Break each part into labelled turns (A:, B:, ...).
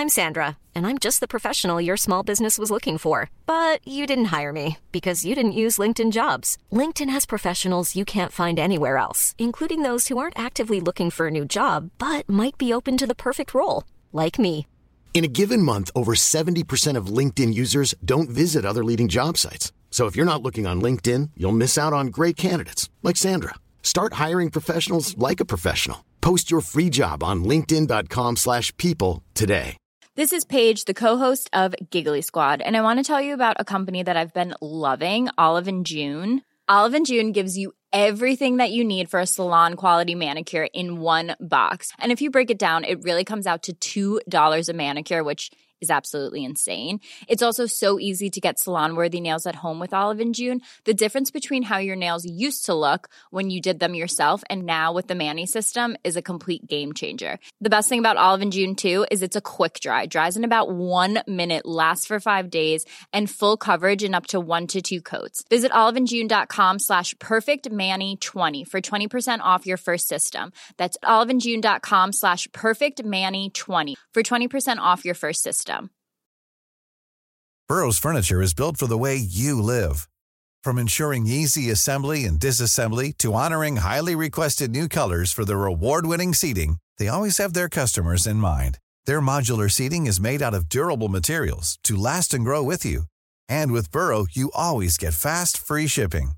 A: I'm Sandra, and I'm just the professional your small business was looking for. But you didn't hire me because you didn't use LinkedIn jobs. LinkedIn has professionals you can't find anywhere else, including those who aren't actively looking for a new job but might be open to the perfect role, like me.
B: In a given month, over 70% of LinkedIn users don't visit other leading job sites. So if you're not looking on LinkedIn, you'll miss out on great candidates like Sandra. Start hiring professionals like a professional. Post your free job on linkedin.com/people slash people today.
C: This is Paige, the co-host of Giggly Squad, and I want to tell you about a company that I've been loving, Olive and June. Olive and June gives you everything that you need for a salon quality manicure in one box. And if you break it down, it really comes out to $2 a manicure, which is absolutely insane. It's also so easy to get salon worthy nails at home with Olive and June. The difference between how your nails used to look when you did them yourself and now with the Mani system is a complete game changer. The best thing about Olive and June too is it's a quick dry. Dries in about 1 minute, lasts for 5 days, and full coverage in up to 1 to 2 coats. Visit oliveandjune.com slash perfectmanny20 for 20% off your first system. That's oliveandjune.com slash perfectmanny20 for 20% off your first system.
D: Burrow's furniture is built for the way you live. From ensuring easy assembly and disassembly to honoring highly requested new colors for their award-winning seating, they always have their customers in mind. Their modular seating is made out of durable materials to last and grow with you. And with Burrow, you always get fast, free shipping.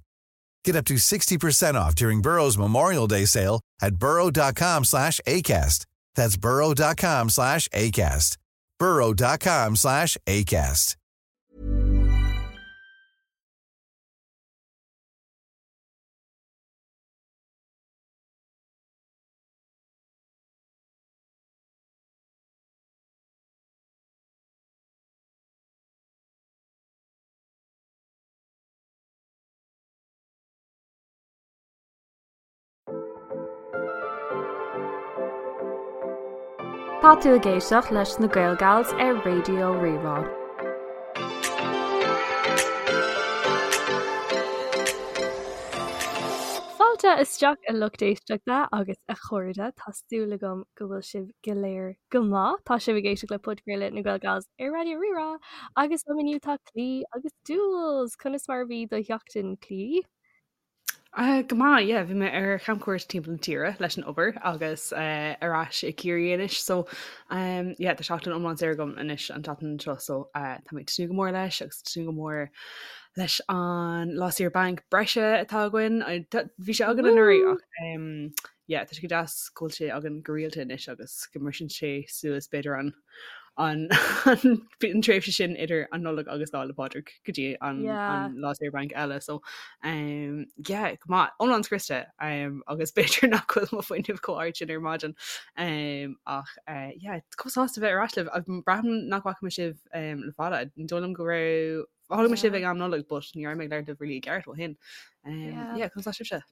D: Get up to 60% off during Burrow's Memorial Day sale at burrow.com slash ACAST. That's burrow.com slash ACAST. burrow.com slash ACAST.
E: Tá tú ag éisteacht leis na Gaelgals ar Raidió Rí-Rá. Fáilte isteach a lucht éisteachta agus a chairde, tá súil agam go bhfuil sibh go léir go maith. Tá sibh ag éisteacht le podchraoladh na Gaelgals ar Raidió Rí-Rá agus liom inniu tá Clí agus Jules! Conas mar a bhí do sheachtain, Clí?
F: Uh, go maith, yeah, bhí mé ar chamchuairt timpeall na tíre leis an obair agus uh, ar ais i Ciarraí anois, so um, yeah, tá seachtain iomlán saor agam anois an tseachtain seo, so uh, tá mé ag tnúth go mór leis agus tnúth go mór leis an lá saoire bainc breise atá againn. Bhí sé againn anuraidh ach um, yeah, tá sé go deas go bhfuil sé againn go rialta anois agus go mbriseann sé suas b'fhéidir an an an tréimhse sin idir an Nollaig agus Lá 'le Pádraig go dtí an, yeah. an lá saoire bainc eile so um, yeah, go maith iomlán scriosta um, agus b'fhéidir nach bhfuil mo fuinneamh chomh hard sin ar maidin um, ach uh, yeah, chomh sásta bheith ar ais libh braithim nach bhfaca mé sibh um, le fada ní dóigh liom go raibh chonaic mé sibh ag am Nollag but ní raibh mé ag labhairt libh really i gceart ó shin. Um, yeah. yeah, conas tá sibhse?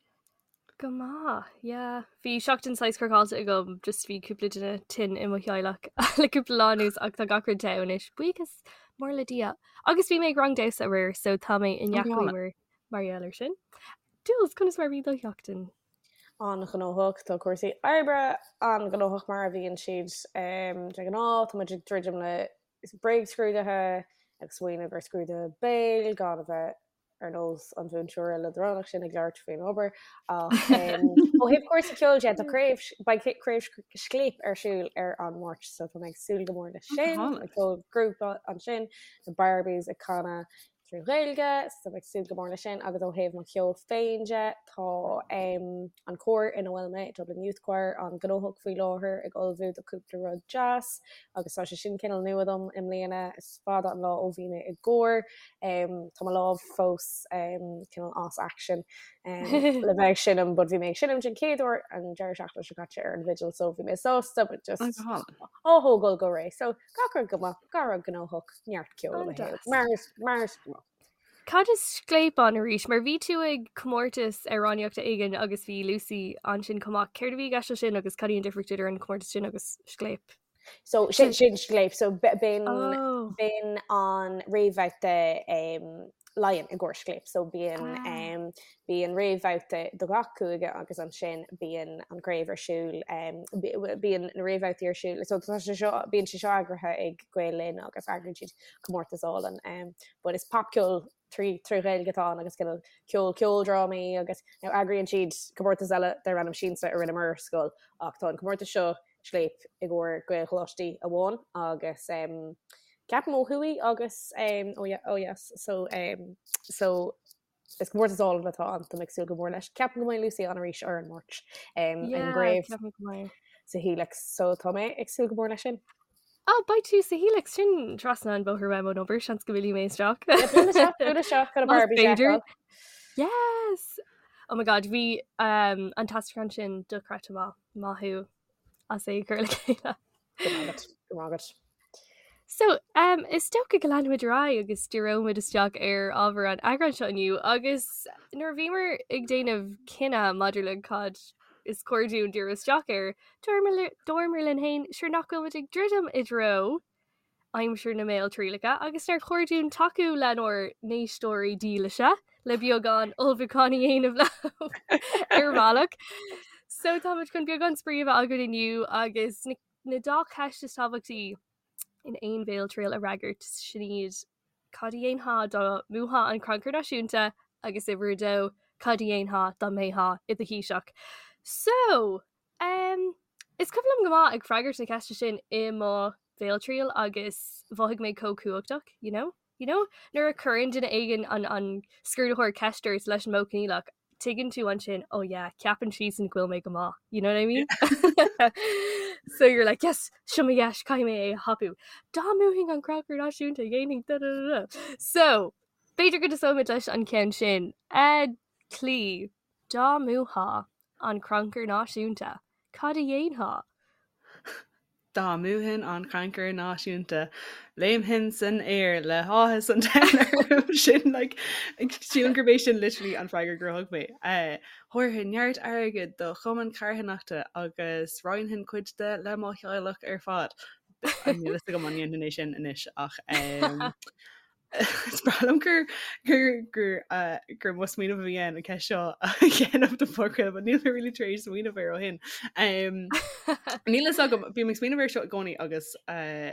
E: Go maith, yeah. Bhí seachtain saghas craiceáilte agam, just bhí cúpla duine tinn i mo theaghlach le cúpla lá anuas ach tá gach rud te anois, buíochas mór le Dia. Agus bhí mé ag rang damhsa aréir, so tá mé i ndea-chaoi mar mar gheall air sin. Jules, conas mar a bhí do sheachtain?
G: An-ghnóthach, tá cúrsaí oibre an-ghnóthach mar a bhíonn siad de ghnáth, tá muid ag druidim le bréagscrúduithe, ag smaoineamh ar scrúduithe béil gan a bheith ar nós an mhúinteora leadránach sin ag labhairt faoin obair ach ó thaobh cúrsaí ceoil de tá craobh beidh craobh Scléip ar siúl ar an Máirt so tá mé ag súil go mór leis sin ag ceol grúpa ansin na Barbies ag canadh trí Ghaeilge so ag súil go mór leis sin agus ó thaobh mo cheol féin de tá an cór ina bhfuil mé Dublin Youth Choir an-ghnóthach faoi láthair ag ullmhú do cúpla rud deas agus tá sé sin cineál nua dom i mbliana is fada an lá ó bhí mé i gcór Tá mo lámh fós cineál as action le bheith ag seinm, but bhí mé ag seinm den chéad uair an deireadh seachtaine seo caite ar an bhfidil, so bhí mé sásta, but just á thógáil go réidh. So gach rud go maith, gach rud gnóthach, neart ceoil i mo shaol. Mar mar is gnách.
E: Cad is Scléip ann arís? Mar bhí tú ag comórtas amhránaíochta éigin agus bhí Lucy ansin chomh maith. Céard a bhí i gceist leis sin agus cad í an difríocht idir an comórtas sin agus Scléip?
G: So sin sin Scléip so b'in oh. b'in an réamhbhabhta um, Laighean i gcomhair Scléip. So bíonn ah. bíonn réamhbhabhta do gach cúige agus ansin bíonn an craobh ar siúl bíonn na réamhbhabhtaí ar siúl. So tá sé seo bíonn sé seo eagraithe ag Gael Linn agus eagraíonn siad comórtas álainn. Um, but is popcheol trí trí Ghaeilge atá ann agus cineál ceol ceoldrámaí agus now eagraíonn siad comórtas eile darb ainm Siansa a rinneamar ar scoil ach tá an comórtas seo Scléip i gcomhair Gaelcholáistí amháin agus um, ceapaim ó thuaidh agus um, ó ó dheas so um, so is comórtas álainn atá ann tá mé ag súil go mór leis. Ceapaim go mbeidh Lucy ann arís ar an Máirt um,
E: yeah,
G: an gcraobh sa Helix so tá mé ag súil go mór leis sin.
E: Oh, beidh tú sa Helix sin trasna an bóthar uaim ón obair seans go bhfillfidh mé isteach.
G: B'fhéidir.
E: Yes! Oh my god, bhí um, an t-aistriúchán sin dochreidte maith. Maith thú as é a chur le chéile.
G: Go maith agat, go maith agat.
E: So, um, is dócha go leanfaimid ar aghaidh agus díreoimid isteach ar ábhar an eagráin seo inniu agus nuair a bhíomar ag déanamh cinneadh maidir le cad is cóir dúinn díriú isteach air, dúramar linn féin sure nach bhfuil muid ag druidim i dtreo aimsir na mbéaltrialacha agus nár chóir dúinn tacú lenár n-éisteoirí dílise le beagán ullmhúcháin a dhéanamh leo ar bhealach. So táimid chun beagán spraoi a bheith againn inniu agus na na dá cheist is tábhachtaí in aon bhéaltriail a fhreagairt, sin iad, cad a dhéanfá dá mbuafá an Crannchur Náisiúnta agus uimhir a dó, cad a dhéanfá dá mbeifeá i do Thaoiseach? So, um, is cuimhin liom go maith ag freagairt na ceiste sin i mo bhéaltriail agus mhothaigh mé chomh cumhachtach, you know? You know, nuair a chuireann duine éigin an, an scrúdaitheoir ceist ort leis an modh coinníollach, tuigeann tú ansin, oh yeah, ceapann siadsan go bhfuil mé go maith, you know what I mean? So you're like, yes, seo mo dheis, caithfidh mé é a thapú. Dá mbuafainn an Crannchur Náisiúnta, dhéanfainn da da da da. So, b'fhéidir go dtosóimid leis an ceann sin. A Chlí, dá mbuafá an Crannchur Náisiúnta, cad a dhéanfá?
F: Dá mbuafainn an Crannchur Náisiúnta, léimfinn san aer le háthas an domhain orm. Sin like, sílim gurb é sin literally an freagra gur thug mé. Thabharfainn neart airgid do chumann carthanachta agus roinnfinn cuid de le mo theaghlach ar fad. Níl a fhios agam an ndéanfainn é sin anois ach Is breá liom gur gur gur uh, gur mo smaoineamh a bhí ann an ceist seo a dhéanamh don phodchraoladh, but níl mé really tar éis smaoineamh air ó shin. Um, níl a fhios agam, bím ag smaoineamh air seo i gcónaí agus uh,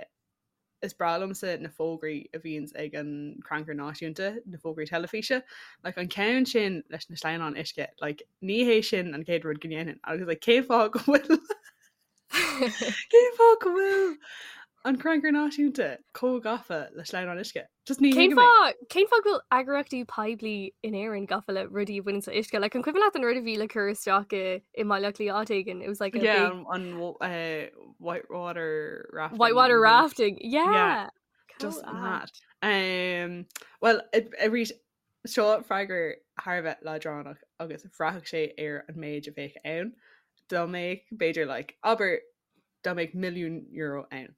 F: is breá liomsa na fógraí a bhíonns ag an Crannchur Náisiúnta, na fógraí teilifíse. Like, an ceann sin leis na sleamhnáin uisce, like, ní hé sin an chéad rud go ndéanfainn. Agus like, cén fáth go bhfuil Cén fáth go bhfuil an Crannchur Náisiúnta chomh gafa le sleamhnáin uisce? Just ní
E: Cén fáth cén fáth go bhfuil eagraíochtaí poiblí in Éirinn gafa le rudaí a bhaineann le uisce? Like, an cuimhin leat an rud a bhí le cur isteach i i mBaile Átha Cliath áit éigin? It was like a
F: Yeah, big... an uh, whitewater rafting.
E: Whitewater rafting, yeah.
F: yeah. Just mad. Um, well, arís Seo freagra thar a bheith leadránach agus bhraithfeadh sé ar an méid a bheadh ann. Dá mbeadh, b'fhéidir, like, abair, dá mbeadh milliún euro ann.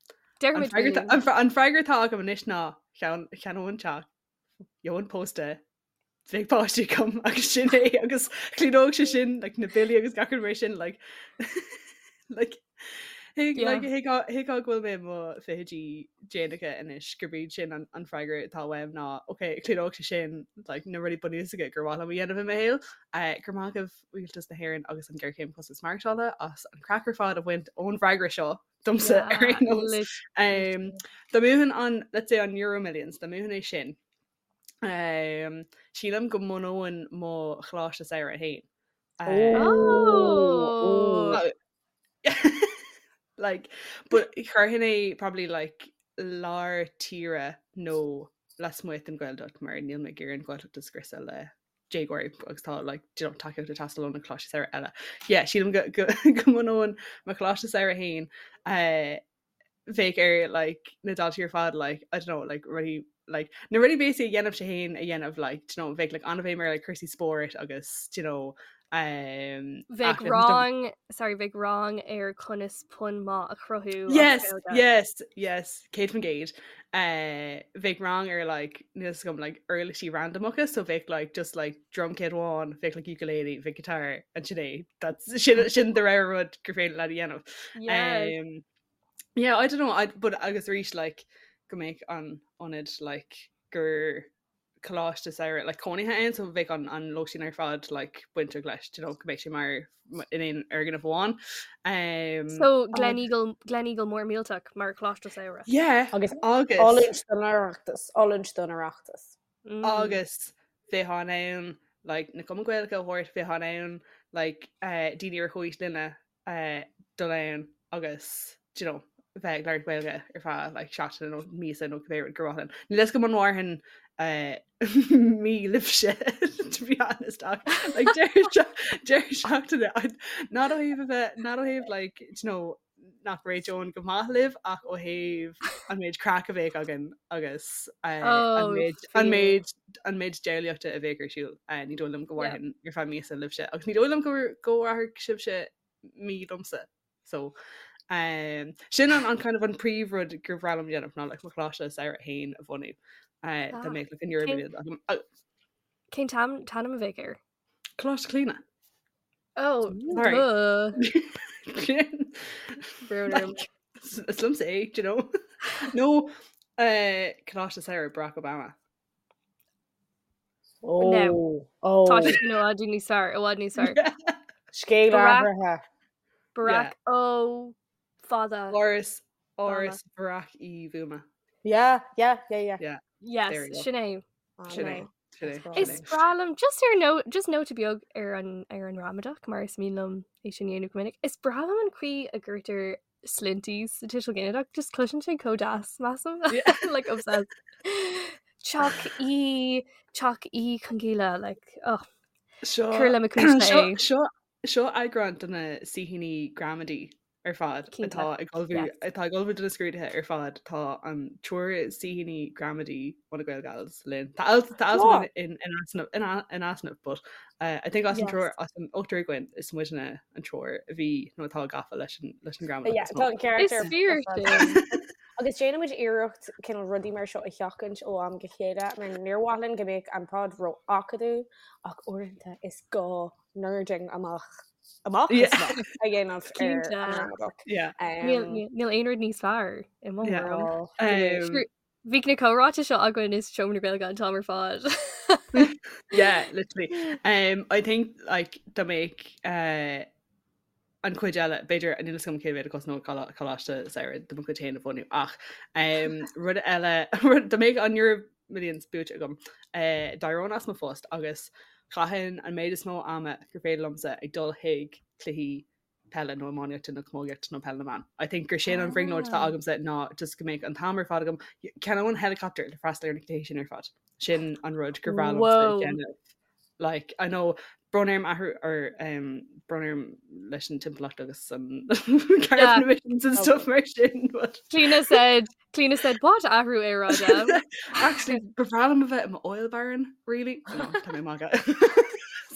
E: An
F: freagra, an freagra atá agam anois ná cheannóinn teach, gheobhainn pósta, bheadh páistí agam agus sin é agus chlúdódh sé sin like, na billí agus gach rud mar sin like, like, Thuigfeá go bhfuil mé i mo fichidí déanacha anois gurb iad sin an freagra atá uaim ná ok, chlúdódh sé sin like, na rudaí bunúsacha gur mhaith liom a dhéanamh i mo shaol. Uh, go raibh maith agaibh Rialtas na hÉireann agus an Ghéarchéim Costas Maireachtála as an craic ar fad a bhaint ón bhfreagra seo domsa ar aon nós. Um, dá mbuafainn an, let's say an Euro Millions, dá mbuafainn é sin. Um, sílim go mbunóinn mo choláiste samhraidh féin.
E: Um, oh.
F: Like, but chuirfinn é probably like lár tíre nó lasmuigh den Ghaeltacht mar níl mé ag iarraidh an Ghaeltacht a scriosadh le déagóirí agus tá like, you know, tacaíocht ag teastáil ó na coláistí samhraidh eile. Yeah, sílim go, go, go mbunóinn mo choláiste samhraidh féin uh, bheadh ar like na daltaí ar fad like I don't know like rudaí like na rudaí basic a dhéanaimse féin a dhéanamh like do you know bheadh like an-bhéim ar like cúrsaí spóirt agus do you know um
E: Bheadh rang sorry bheadh rang ar conas pun maith a chruthú
F: Yes yes yes 100% uh, bheadh rang ar like níl a fhios agam like uirlisí randamacha so bheadh like just like drum kit amháin bheadh like ukulele bheadh guitar and sin é that's sin sin de réir rud gur féidir leat a dhéanamh
E: Yes.
F: um, yeah I don't know I, but agus arís like go mbeadh an ionad like gur coláiste samhraidh like cónaithe ann so bheadh an an lóistín ar fad like bainteach leis you know, go mbeidh sé mar in aon fhoirgneamh amháin.
E: Um, so Gleneagle Gleneagle mór millteach mar choláiste samhraidh.
F: Yeah,
G: agus agus oiliúint don Oireachtas, oiliúint don Oireachtas.
F: Mm. Agus bheifeá in ann like, na cumainn Gaeilge a thabhairt, bheifeá in ann like, uh, daoine ar chomhaois linne uh, dul ann agus you know, bheith ag labhairt Gaeilge ar feadh like, seachtaine nó míosa nó cibé rud gur mhaith linn. Níl a fhios agam an mhairfinn uh, mí libhse to be honest ach like, deireadh seachtaine not ó thaobh a bheith not ó thaobh like, you know, nach réiteoinn go maith libh ach ó thaobh an méid craic a bheadh againn agus uh, an oh, méid an méid an méid diabhlaíochta a bheadh ar siúl uh, ní dóigh liom go mhairfinn ar feadh míosa libhse agus ní dóigh liom go mhairfeadh sibhse mí liomsa so um, sin an, an kind of an príomhrud gur bhreá liom déanamh ná like, mo choláiste samhraidh féin a bhunú uh, ah, dá mbeadh like, an Euro
E: uh, Cén t-ainm a bheadh air?
F: Coláiste Clíona.
E: Oh, Sorry. duh.
F: Is liomsa é, do you know? Nó uh, Coláiste Samhraidh Barack Obama.
G: Oh, no. Oh.
E: Tá sé i bhfad níos fearr, i bhfad níos fearr.
G: Scéal athraithe.
E: Barack yeah. Ó fada.
F: Áras Áras Barack Uí Bhuama.
G: Yeah, yeah, yeah, yeah.
F: Yeah.
E: Yes, sin é.
F: Sin é.
E: Is breá liom just ar nó just nóta beag ar an ar an ramadach mar is mian liom é sin a dhéanamh go minic. Is breá liom an chaoi a gcuirtear sloinnte sa tuiseal ginideach, just cloiseann sé chomh deas measaim like obsessed. Teach Uí Teach Uí Chonghaile like oh
F: Seo
E: Cuir le mo cuimhne é.
F: Seo seo eagrán de na saoithíní gramadaí ar fad atá ag ullmhú atá ag ullmhú do na scrúduithe ar fad tá an triúr saoithíní gramadaí ó na Gaelgals linn. Tá alt tá alt in in easnamh in in easnamh but uh, I think as an triúr as an ochtar againn is muidne an triúr a bhí nó atá gafa leis an leis an gramadach.
G: Yeah, tá an ceart
E: Is fíor sin.
G: Agus déanaimid iarracht cineál rudaí mar seo a sheachaint ó am go chéile, mar níor mhaith linn go mbeadh an pod ró-acadúil ach uaireanta is gá nerding amach amach is amach a dhéanamh ar an ramadach.
E: Níl aon rud níos fearr i mo thuairim. Bhí na comhráite seo againn i Seomra na Gaeilge an t-am ar
F: fad. Yeah, literally. Um, I think like dá mbeadh uh, an chuid eile, b'fhéidir níl a fhios agam cé mhéad a chosnódh coláiste samhraidh de mo chuid féin a bhunú ach um, rud eile dá mbeadh an Euro Millions buaite agam uh, d'éireoinn as mo phost agus chaithfinn an méid is mó ama gur féidir liomsa ag dul chuig cluichí peile nó iománaíochta nó camógaíochta nó peil na mban. I think gur sin an bhrionglóid atá ah. agamsa ná just go mbeadh an t-am ar fad agam cheannóinn helicopter le freastal ar na cluichí sin ar fad. Sin an rud gur bhreá liomsa déanamh. Like, I know brón orm athrú or um, brón orm leis an timpeallacht agus an carbon emissions and stuff mar sin. But...
E: Clíona said, Clíona said, what athrú aeráide?
F: Actually, ba bhreá liom a bheith i mo oil baron, really? No, tá mé ag magadh.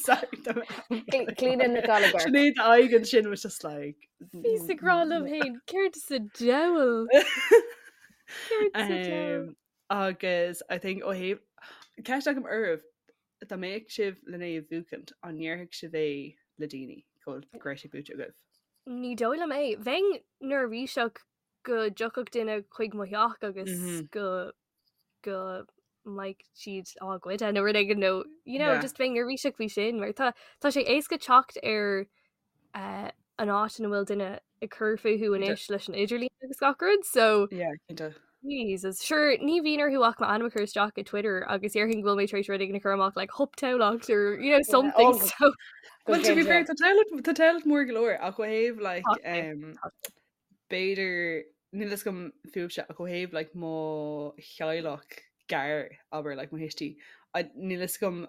F: Sorry, tá
G: mé Clíona Nic Gallagher.
F: Sinéad aghaidh ansin was just like...
E: Bhíos ag rá liom féin, céard sa diabhal? Céard sa diabhal?
F: Um, agus I think ó thaobh ceist agam oraibh dá mbeadh sibh len é a bhuachaint, an ndéarfadh sibh é le daoine go go raibh sé buaite agaibh?
E: Ní dóigh liom é. Bheinn neirbhíseach go dtiocfadh duine chuig mo theach agus mm-hmm. go go mbeadh siad á ghoid nó rud éigin nó you know, yeah. just bheinn neirbhíseach faoi sin mar tá tá sé éasca teacht ar uh, an áit ina bhfuil duine ag cur fúthu anois leis an idirlíon agus gach rud so
F: yeah, cinnte.
E: Jesus. Sure, ní bhíonn orthu ach m'ainm a chur isteach i Twitter agus déarfainn go bhfuil mé tar éis rud éigin a chur amach like hup Tamhlacht or you know something oh, so
F: Well, to be fair, tá Tamhlacht tá Tamhlacht mór go leor ach ó thaobh like um, b'fhéidir níl a fhios agam fúibhse ach ó thaobh like mo theaghlach gar abair like mo thuistí níl a fhios agam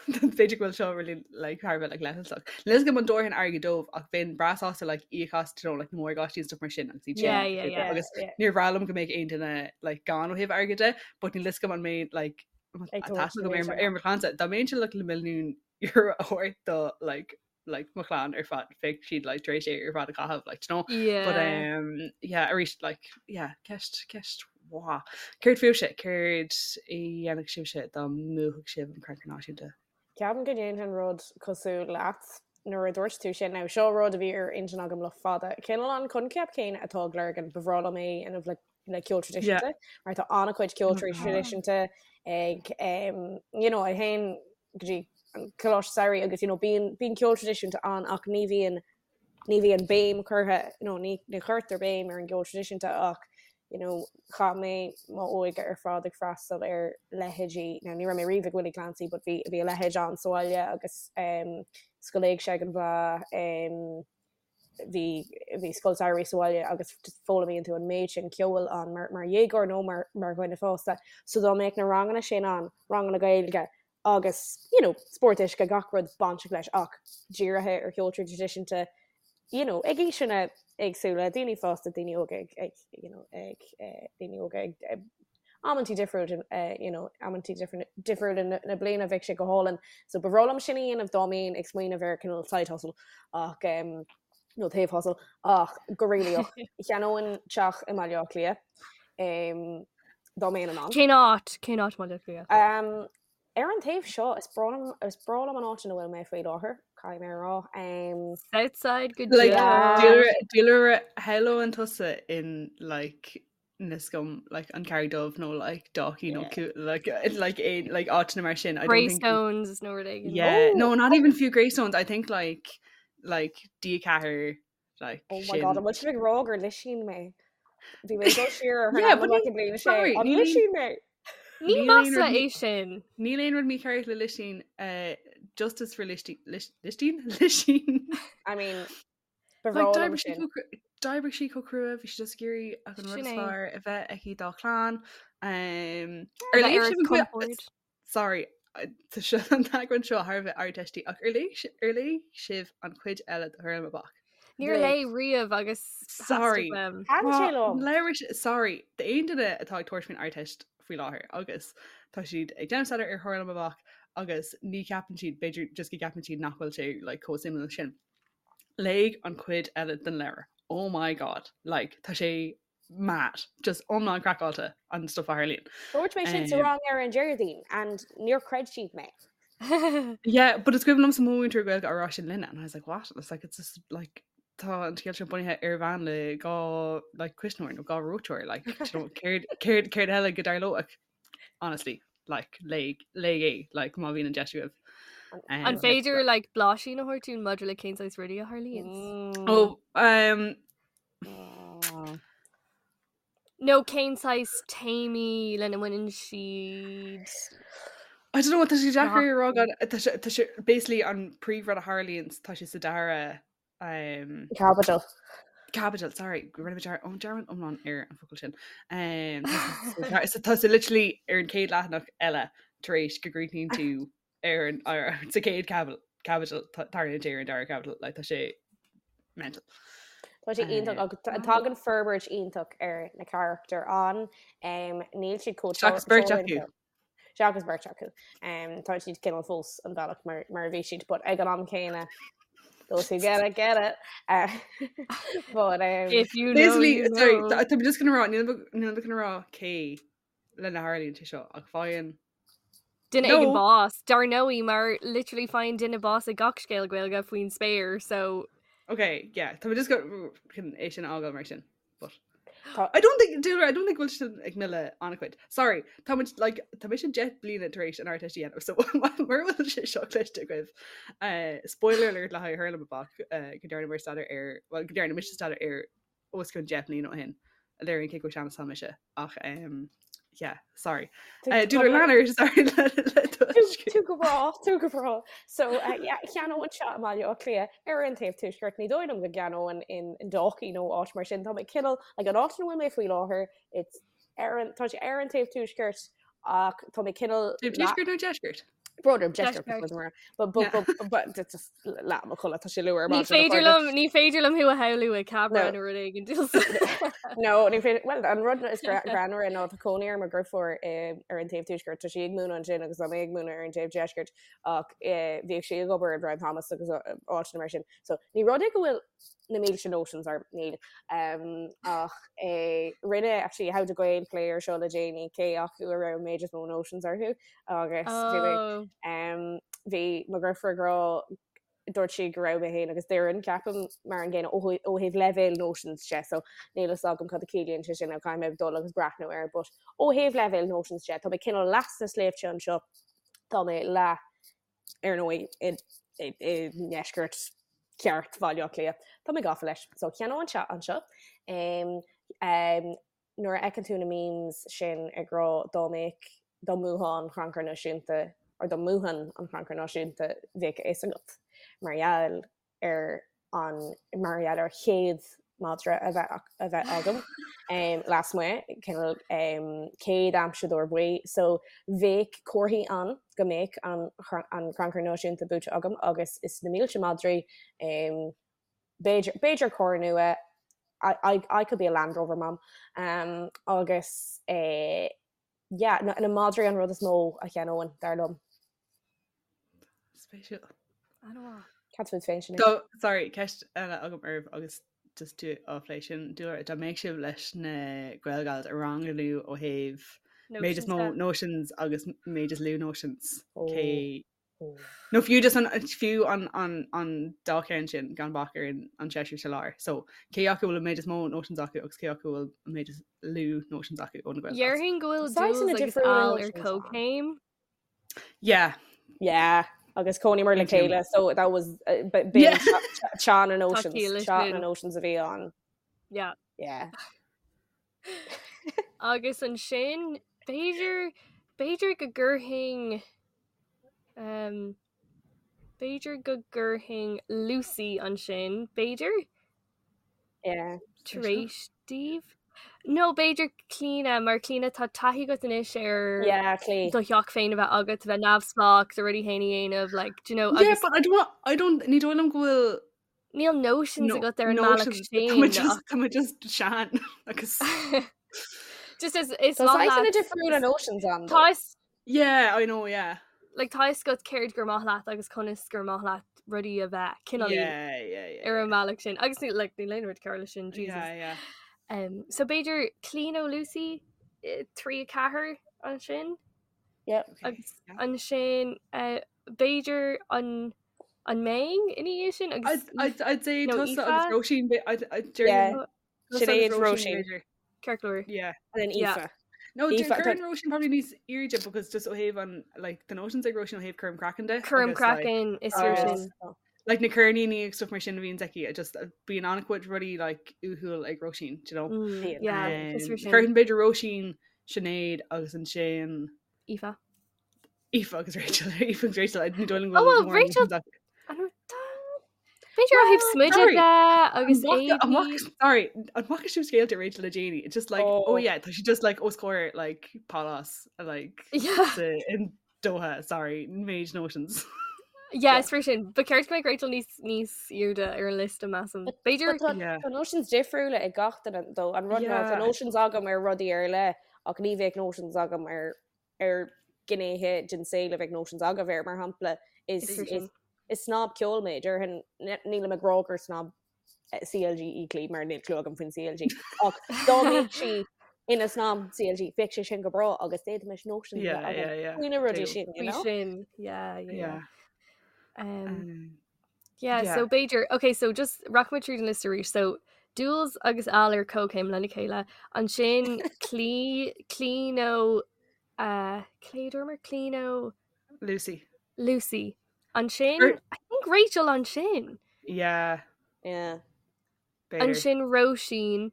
F: B'fhéidir go bhfuil seo really like thar a bheith like leithleasach. Níl a fhios agam an dtabharfainn airgead dóibh ach bheinn breá sásta like íoc as you know like na morgáistí and stuff mar sin agus iad sin
E: Yeah, yeah, yeah.
F: agus níor bhreá liom go mbeadh aon duine like gann ó thaobh airgid de but níl a fhios agam an mbeinn like
G: Ag tabhairt
F: tá agam ar ar mo chlannsa dá mbeinnse like le milliún euro a thabhairt do like like mo chlann ar fad bheadh siad like tar éis é ar fad a chaitheamh like you know but
E: Yeah.
F: um yeah arís like yeah ceist ceist mhaith. Céard fúibhse céard a dhéanfadh sibhse dá mbuafadh sibh an Crannchur Náisiúnta?
G: Ceapaim go ndéanfainn rud cosúil leat nuair a dúirt tú sin. Now seo rud a bhí ar intinn agam le fada. Cineál an coincheap céanna atá ag Lurgan, ba bhreá liom é a dhéanamh le. le ceol traidisiúnta mar tá an-chuid ceol traidisiúnta ag um, you know, I théim go dtí an coláiste samhraidh agus you know, bíonn bíonn ceol traidisiúnta ann ach ní bhíonn ní bhíonn béim curtha nó ní ní chuirtear béim ar an gceol traidisiúnta ach you know, chaith mé m'óige ar fad ag freastal ar leithéidí, now ní raibh mé riamh ag Willie Clancy but bhí bhí a leithéid ann sa bhaile agus um, Scoil Éigse ag an Bhleá um, bhí bhí scoil samhraidh sa bhaile agus just foghlaimíonn tú an méid sin ceoil ann mar mar dhéagóir nó mar mar dhuine fásta. So dá mbeadh na ranganna sin ann, ranganna Gaeilge agus you know, spórt uisce gach rud bainteach leis ach dírithe ar cheol traidisiúnta you know, ag aoiseanna éagsúla, daoine fásta, daoine óga ag, ag, you know, ag eh, daoine óga ag eh, amantaí difriúil eh, you know, amantaí difriúla na, na bliana bheadh sé go hálainn. So ba bhreá liom sin a dhéanamh dá mbeinn ag smaoineamh ar cineál side hustle ach um, nó taobh hustle ach go réalaíoch cheannóinn teach i mBaile Átha Cliath um, dá mbeinn in ann.
E: Cén áit cén áit Baile Átha Cliath?
G: Um, ar an taobh seo is breá liom is breá liom an áit ina bhfuil mé faoi láthair, caithfidh mé a rá. Um,
E: Southside go
F: Like,
E: deo.
F: Dúlra shamhlóinn tusa in like níl 'fhios agam like an Carraig Dubh nó like Dalkey nó yeah. like like a like áiteanna mar sin.
E: I don't think Greystones nó rud éigin.
F: Yeah,
G: oh,
F: no, not even fiú Greystones. I think like like D4 like
G: Oh my god, an bhfuil sibh ag rá gur lisín mé? Bhí mé go siar ar
F: Yeah, but
G: an bliain sé.
F: sorry,
G: An
F: níl aon-
G: lisín mé?
E: Ní
F: Níl aon
E: masla
F: rud
E: é sin.
F: Níl aon rud mícheart le lisín uh, justice for listín listín lisín.
G: I mean, Ba
F: Like,
G: bhreá liom
F: d'oibrigh sí
G: sin.
F: chomh cru- d'oibrigh sí chomh crua, bhí sí just ag iarraidh ach an rud
E: Sin
F: is
E: é.
F: fearr a bheith aici dá clann. Um, ar
E: A bheith
F: léigh
E: ar
F: sibh an cuid-
E: compord.
F: Sorry, uh, tá seo an t-eagrán seo thar a bheith ardteistí ach ar léigh si- ar léigh sibh an chuid eile de Thoirliac Amach?
E: Níor
G: Léigh.
E: léigh riamh agus
F: Sorry.
E: theastaigh uaim.
G: Thaitin sé liom.
F: Leabhar si- sorry, d'aon duine atá ag tabhairt faoin Ardteist faoi láthair agus tá siad ag déanamh staidéar ar Thoirliac Amach agus ní cheapann siad, b'fhéidir just go gceapann siad nach bhfuil sé like, chomh suimiúil sin. Léigh an chuid eile den leabhar. Oh my god, like, tá sé mad, just iomlán craiceáilte an stuff a tharlaíonn.
G: Dúirt mé sin sa rang ar an Déardaoin and níor chreid siad mé.
F: Yeah, but is cuimhin liomsa mo mhúinteoir Gaeilge á rá sin linne and I was like, what? It's like, it's just like, tá an scéal seo bunaithe ar bhean le dhá like, cuisneoir nó dhá reoiteoir, like, do you know, céard céard céard eile go dtarlódh? Honestly, like, léigh léigh é, like, má bhíonn an deis agaibh.
E: An
F: Um,
E: féidir like blaisín a thabhairt dúinn maidir le cén saghas rudaí a tharlaíonn?
G: Mm.
F: Oh, um,
G: Mm.
E: Nó cén saghas téamaí lena mbaineann siad?
F: I don't know what tá sé deacair a rá
E: Nach-
F: gan tá sé tá sé basically an príomhrud a tharlaíonn tá sé sa dara um,
G: Caibidil.
F: Caibidil, sorry, rinne mé dear- ó, dearmad iomlán ar an focal sin. Um, tá sé- tá sé literally ar an chéad leathanach eile tar éis go gcríochnaíonn tú ar an ar, sa chéad caibidil caibidil tá- tarlaíonn sé ar an dara caibidil, like, tá sé mental.
G: Tá sé iontach agus tá- tagann forbairt iontach ar na carachtair ann. Um, níl siad chomh
F: Seachas beirt acu.
G: teoranta. Seachas beirt acu. Um, tá siad cineál fós an bealach mar, mar a bhí siad, but ag an am céanna those who get it, get it. Uh, but um,
E: If you know,
F: Basically,
E: you
F: sorry,
E: know.
F: tá tá mé just gonna rá, níl mé níl mé gonna rá cé lena tharlaíonn sé seo ach faigheann
E: Duine
F: No.
E: éigin bás. Dar ndóigh mar literally faigheann duine bás i gach scéal Gaeilge faoin spéir, so
F: Okay, yeah, tá mé just go chun é sin a fhágáil mar sin. But
G: Tá-
F: I don't think do I don't think bhfuil sin ag milleadh an-chuid. Sorry, tá muid like tá mise 10 bliana tar éis an Ardteist a dhéanamh, so mura bhfuil sé seo cloiste agaibh. Uh, spoiler alert le haghaidh Hurlamaboc uh, go ndearna staidéar ar well go ndearna mise staidéar air os cionn 10 mbliana ó shin. A léiríonn cé chomh sean is atá mise ach um, yeah, sorry. Uh, Dúlra lean ort, sorry le le
G: Tú go breá, tú go breá. So uh, yeah, cheannóinn teach i mBaile Átha Cliath ar an taobh tuaisceart ní dóigh liom go gceannóinn in in Dalkey nó áit mar sin tá mé cineál like an áit ina bhfuil mé faoi láthair it's ar an tá sé ar an taobh tuaisceart ach tá mé cineál
F: Taobh tuaisceart nó deisceart?
G: Brother deisceart
E: Deisceart.
G: mar but but
F: Yeah.
G: but but it's just leath mo chodladh tá sé luath ar
E: ní
G: maidin, a
E: féidir
G: chairde.
E: liom ní féidir liom thú a shamhlú ag Cabra
G: No.
E: nó rud éigin.
G: No, ní féidir well an rud is greannmhaire ná tá cónaí ar mo dheirfiúr ar an taobh tuaisceart tá sí ag múineadh ansin agus tá mé ag múineadh ar an taobh deisceart ach eh, bhíodh sí ag obair i Brown Thomas agus uh, áiteanna mar sin. So ní rud é go bhfuil na mílte notions orm níl um, ach eh, rinne actually How to Gael plé air seo le déanaí cé acu a raibh an méid is mó notions orthu agus bhí mé-
E: Oh.
G: um, bhí mo dheirfiúr ag rá dúirt sí go raibh mé féin agus Doireann, ceapaim, mar an gcéanna ó thaobh leibhéal notions de, so níl fhios agam cad a chiallaíonn sé sin, caithfidh mé dul agus breathnú air, but ó thaobh leibhéal notions de, tá mé cineál leath sna sléibhte anseo, tá mé leath, ar ndóigh, i ndeisceart ceart Bhaile Átha Cliath. Tá mé gafa leis. So cheannóinn teach anseo. Nuair a fheiceann tú na memes sin ag rá dá mbeadh, dá mbuafá an Chrannchur Náisiúnta, or dá mbuafainn an Crannchur Náisiúnta, bheadh a fhios agat mar gheall ar an, mar gheall ar chéad madra a bheith, a bheith agam lasmuigh, cineál céad aimseadóir buí. So bheadh comharthaí ann go mbeadh an, an Crannchur Náisiúnta buaite agam agus is na mílte madraí, B'fhéidir, b'fhéidir carr nua, I, I, I could be a Land Rover mom. Um, agus eh, yeah, na, na madraí an rud is mó a cheannóinn, dar liom.
F: Spéisiúil.
E: An-mhaith.
G: Cad fút féin sin?
F: So, sorry, ceist eile agam oraibh agus just tú á phlé sin, dúra, dá mbeadh sibh leis na Gaelgals a ranganú ó thaobh méid is mó notions agus méid is lú notions.
G: Oh.
F: Cé Nó fiú just an fiú an an an dá cheann sin gan bac ar an an seisear sa lár. So cé acu bhfuil an méid is mó notions acu agus cé acu bhfuil an méid is lú notions acu ó na Gaelgals.
E: Déarfainn go bhfuil
G: Saghas
E: Jules agus
G: difriúla
E: Al ar
G: notions ann.
E: comhchéim.
F: Yeah.
G: Yeah, agus chónaíomar le
F: Aontaím.
G: chéile, so that was uh, b-
F: Yeah.
G: b'in teann na notions,
E: ciall leis
G: teann na
E: sin.
G: notions a bhí ann.
E: Yeah.
G: Yeah.
E: Agus ansin b'fhéidir b'fhéidir go gcuirfinn um, b'fhéidir go gcuirfinn Lucy ansin, b'fhéidir?
G: Yeah.
E: Tar éis daoibh? No, b'fhéidir Clíona, mar Clíona tá taithí agat anois ar
G: Yeah, Clí.
E: do theach féin a bheith agat, a bheith neamhspleách, do rudaí féin a dhéanamh, like, do you know,
F: Yeah,
E: agus
F: but I don't want, I don't, ní dóigh liom go bhfuil
E: níl notions
F: no,
E: agat ar an mbealach
F: notions.
E: sin.
F: Tá mé just, tá mé just sean agus
E: Just is, is
G: Tá
E: maith
G: saghas
E: leat-
G: difriúla notions ann.
E: Tá fhios-
F: Yeah, I know, yeah.
E: like, tá fhios agat céard gur maith leat agus conas gur maith leat rudaí a bheith cineál
F: Yeah, yeah, yeah.
E: ar an mbealach sin. Agus ní like, níl aon rud cearr leis sin, Jesus.
F: Yeah, yeah.
E: Um, so b'fhéidir Clíona nó Lucy 3 4 ansin
G: Yep.
F: Okay.
E: agus ansin uh, b'fhéidir an an mbeinn ina dhiaidh sin agus
F: I'd, I'd, I'd say
E: No,
F: tusa
E: Aoife?
F: agus Róisín, but I'd, I'd
G: Yeah.
F: yeah. Tusa
G: Sinéad,
F: agus Róisín,
G: Róisín.
F: b'fhéidir.
E: Ceart go leor.
F: Yeah.
G: And then
E: Yeah.
G: Aoife.
F: No,
G: Aoife,
F: cuireann Róisín probably níos airde because just ó thaobh an like the notions ag Róisín ó thaobh cúram craicinn de.
E: Cúram
F: agus, like,
E: craicinn is fíor
F: agus-
E: sin.
F: like na ceirníní agus stuff mar sin a bhíonn aici, just uh, bíonn an-chuid rudaí like uathúil ag Róisín, do you know?
E: Mm, yeah, is fíor sin.
F: Cuireann b'fhéidir Róisín, Sinéad agus ansin
E: Aoife.
F: Aoife agus Rachel Aoife agus Rachel I ní dóigh liom
E: Oh,
F: go
E: well,
F: bhfuil mórán
E: Rachel-
F: notions acu.
E: An raibh tá- B'fhéidir ó thaobh
F: Well,
E: smideadh
F: sorry.
E: de agus
F: An bhfaca- an
E: éadaí.
F: bhfaca- Sorry, an bhfaca sibh scéalta Rachel le déanaí? It's just like, oh
G: Oh.
F: yeah, tá sí just like os comhair like palace like
E: Yeah.
F: sa, in Doha, sorry, méid notions.
E: Yeah, is fíor sin. Ba cheart go mbeadh Rachel níos níos airde ar an liosta measaim. B'fhéidir
G: But tá
F: Yeah.
G: tá notions difriúla ag gach duine though. An rud ná tá
F: Yeah.
G: notions agam ar rudaí ar leith ach ní bheadh notions agam ar ar gnéithe den saol a bheadh notions agaibh air mar shampla is
E: Is fíor
G: is
E: sin.
G: is snob ceoil mé déarfainn nílim ag rá gur snob eh, CLG í Clí mar níl clue agam faoin CLG ach dá mbeadh sí ina snob CLG bheadh sé sin go breá agus d'fhéadfaimis notions a
F: Yeah,
G: bheith agam
F: yeah, yeah.
G: faoi na rudaí
F: True.
G: sin, you
E: Faoi
G: know?
E: sin. Yeah, yeah, yeah.
F: Yeah.
E: Um,
F: Um,
E: yeah,
F: yeah.
E: so b'fhéidir, okay, so just rachaidh muid tríd an liosta arís. So Jules agus Al ar comhchéim lena chéile. Ansin Clí Clí nó uh, Clé dúramar Clí nó
F: Lucy.
E: Lucy. Ansin
F: Er-
E: I think Rachel ansin.
F: Yeah.
G: Yeah.
F: B'fhéidir.
E: Ansin Róisín,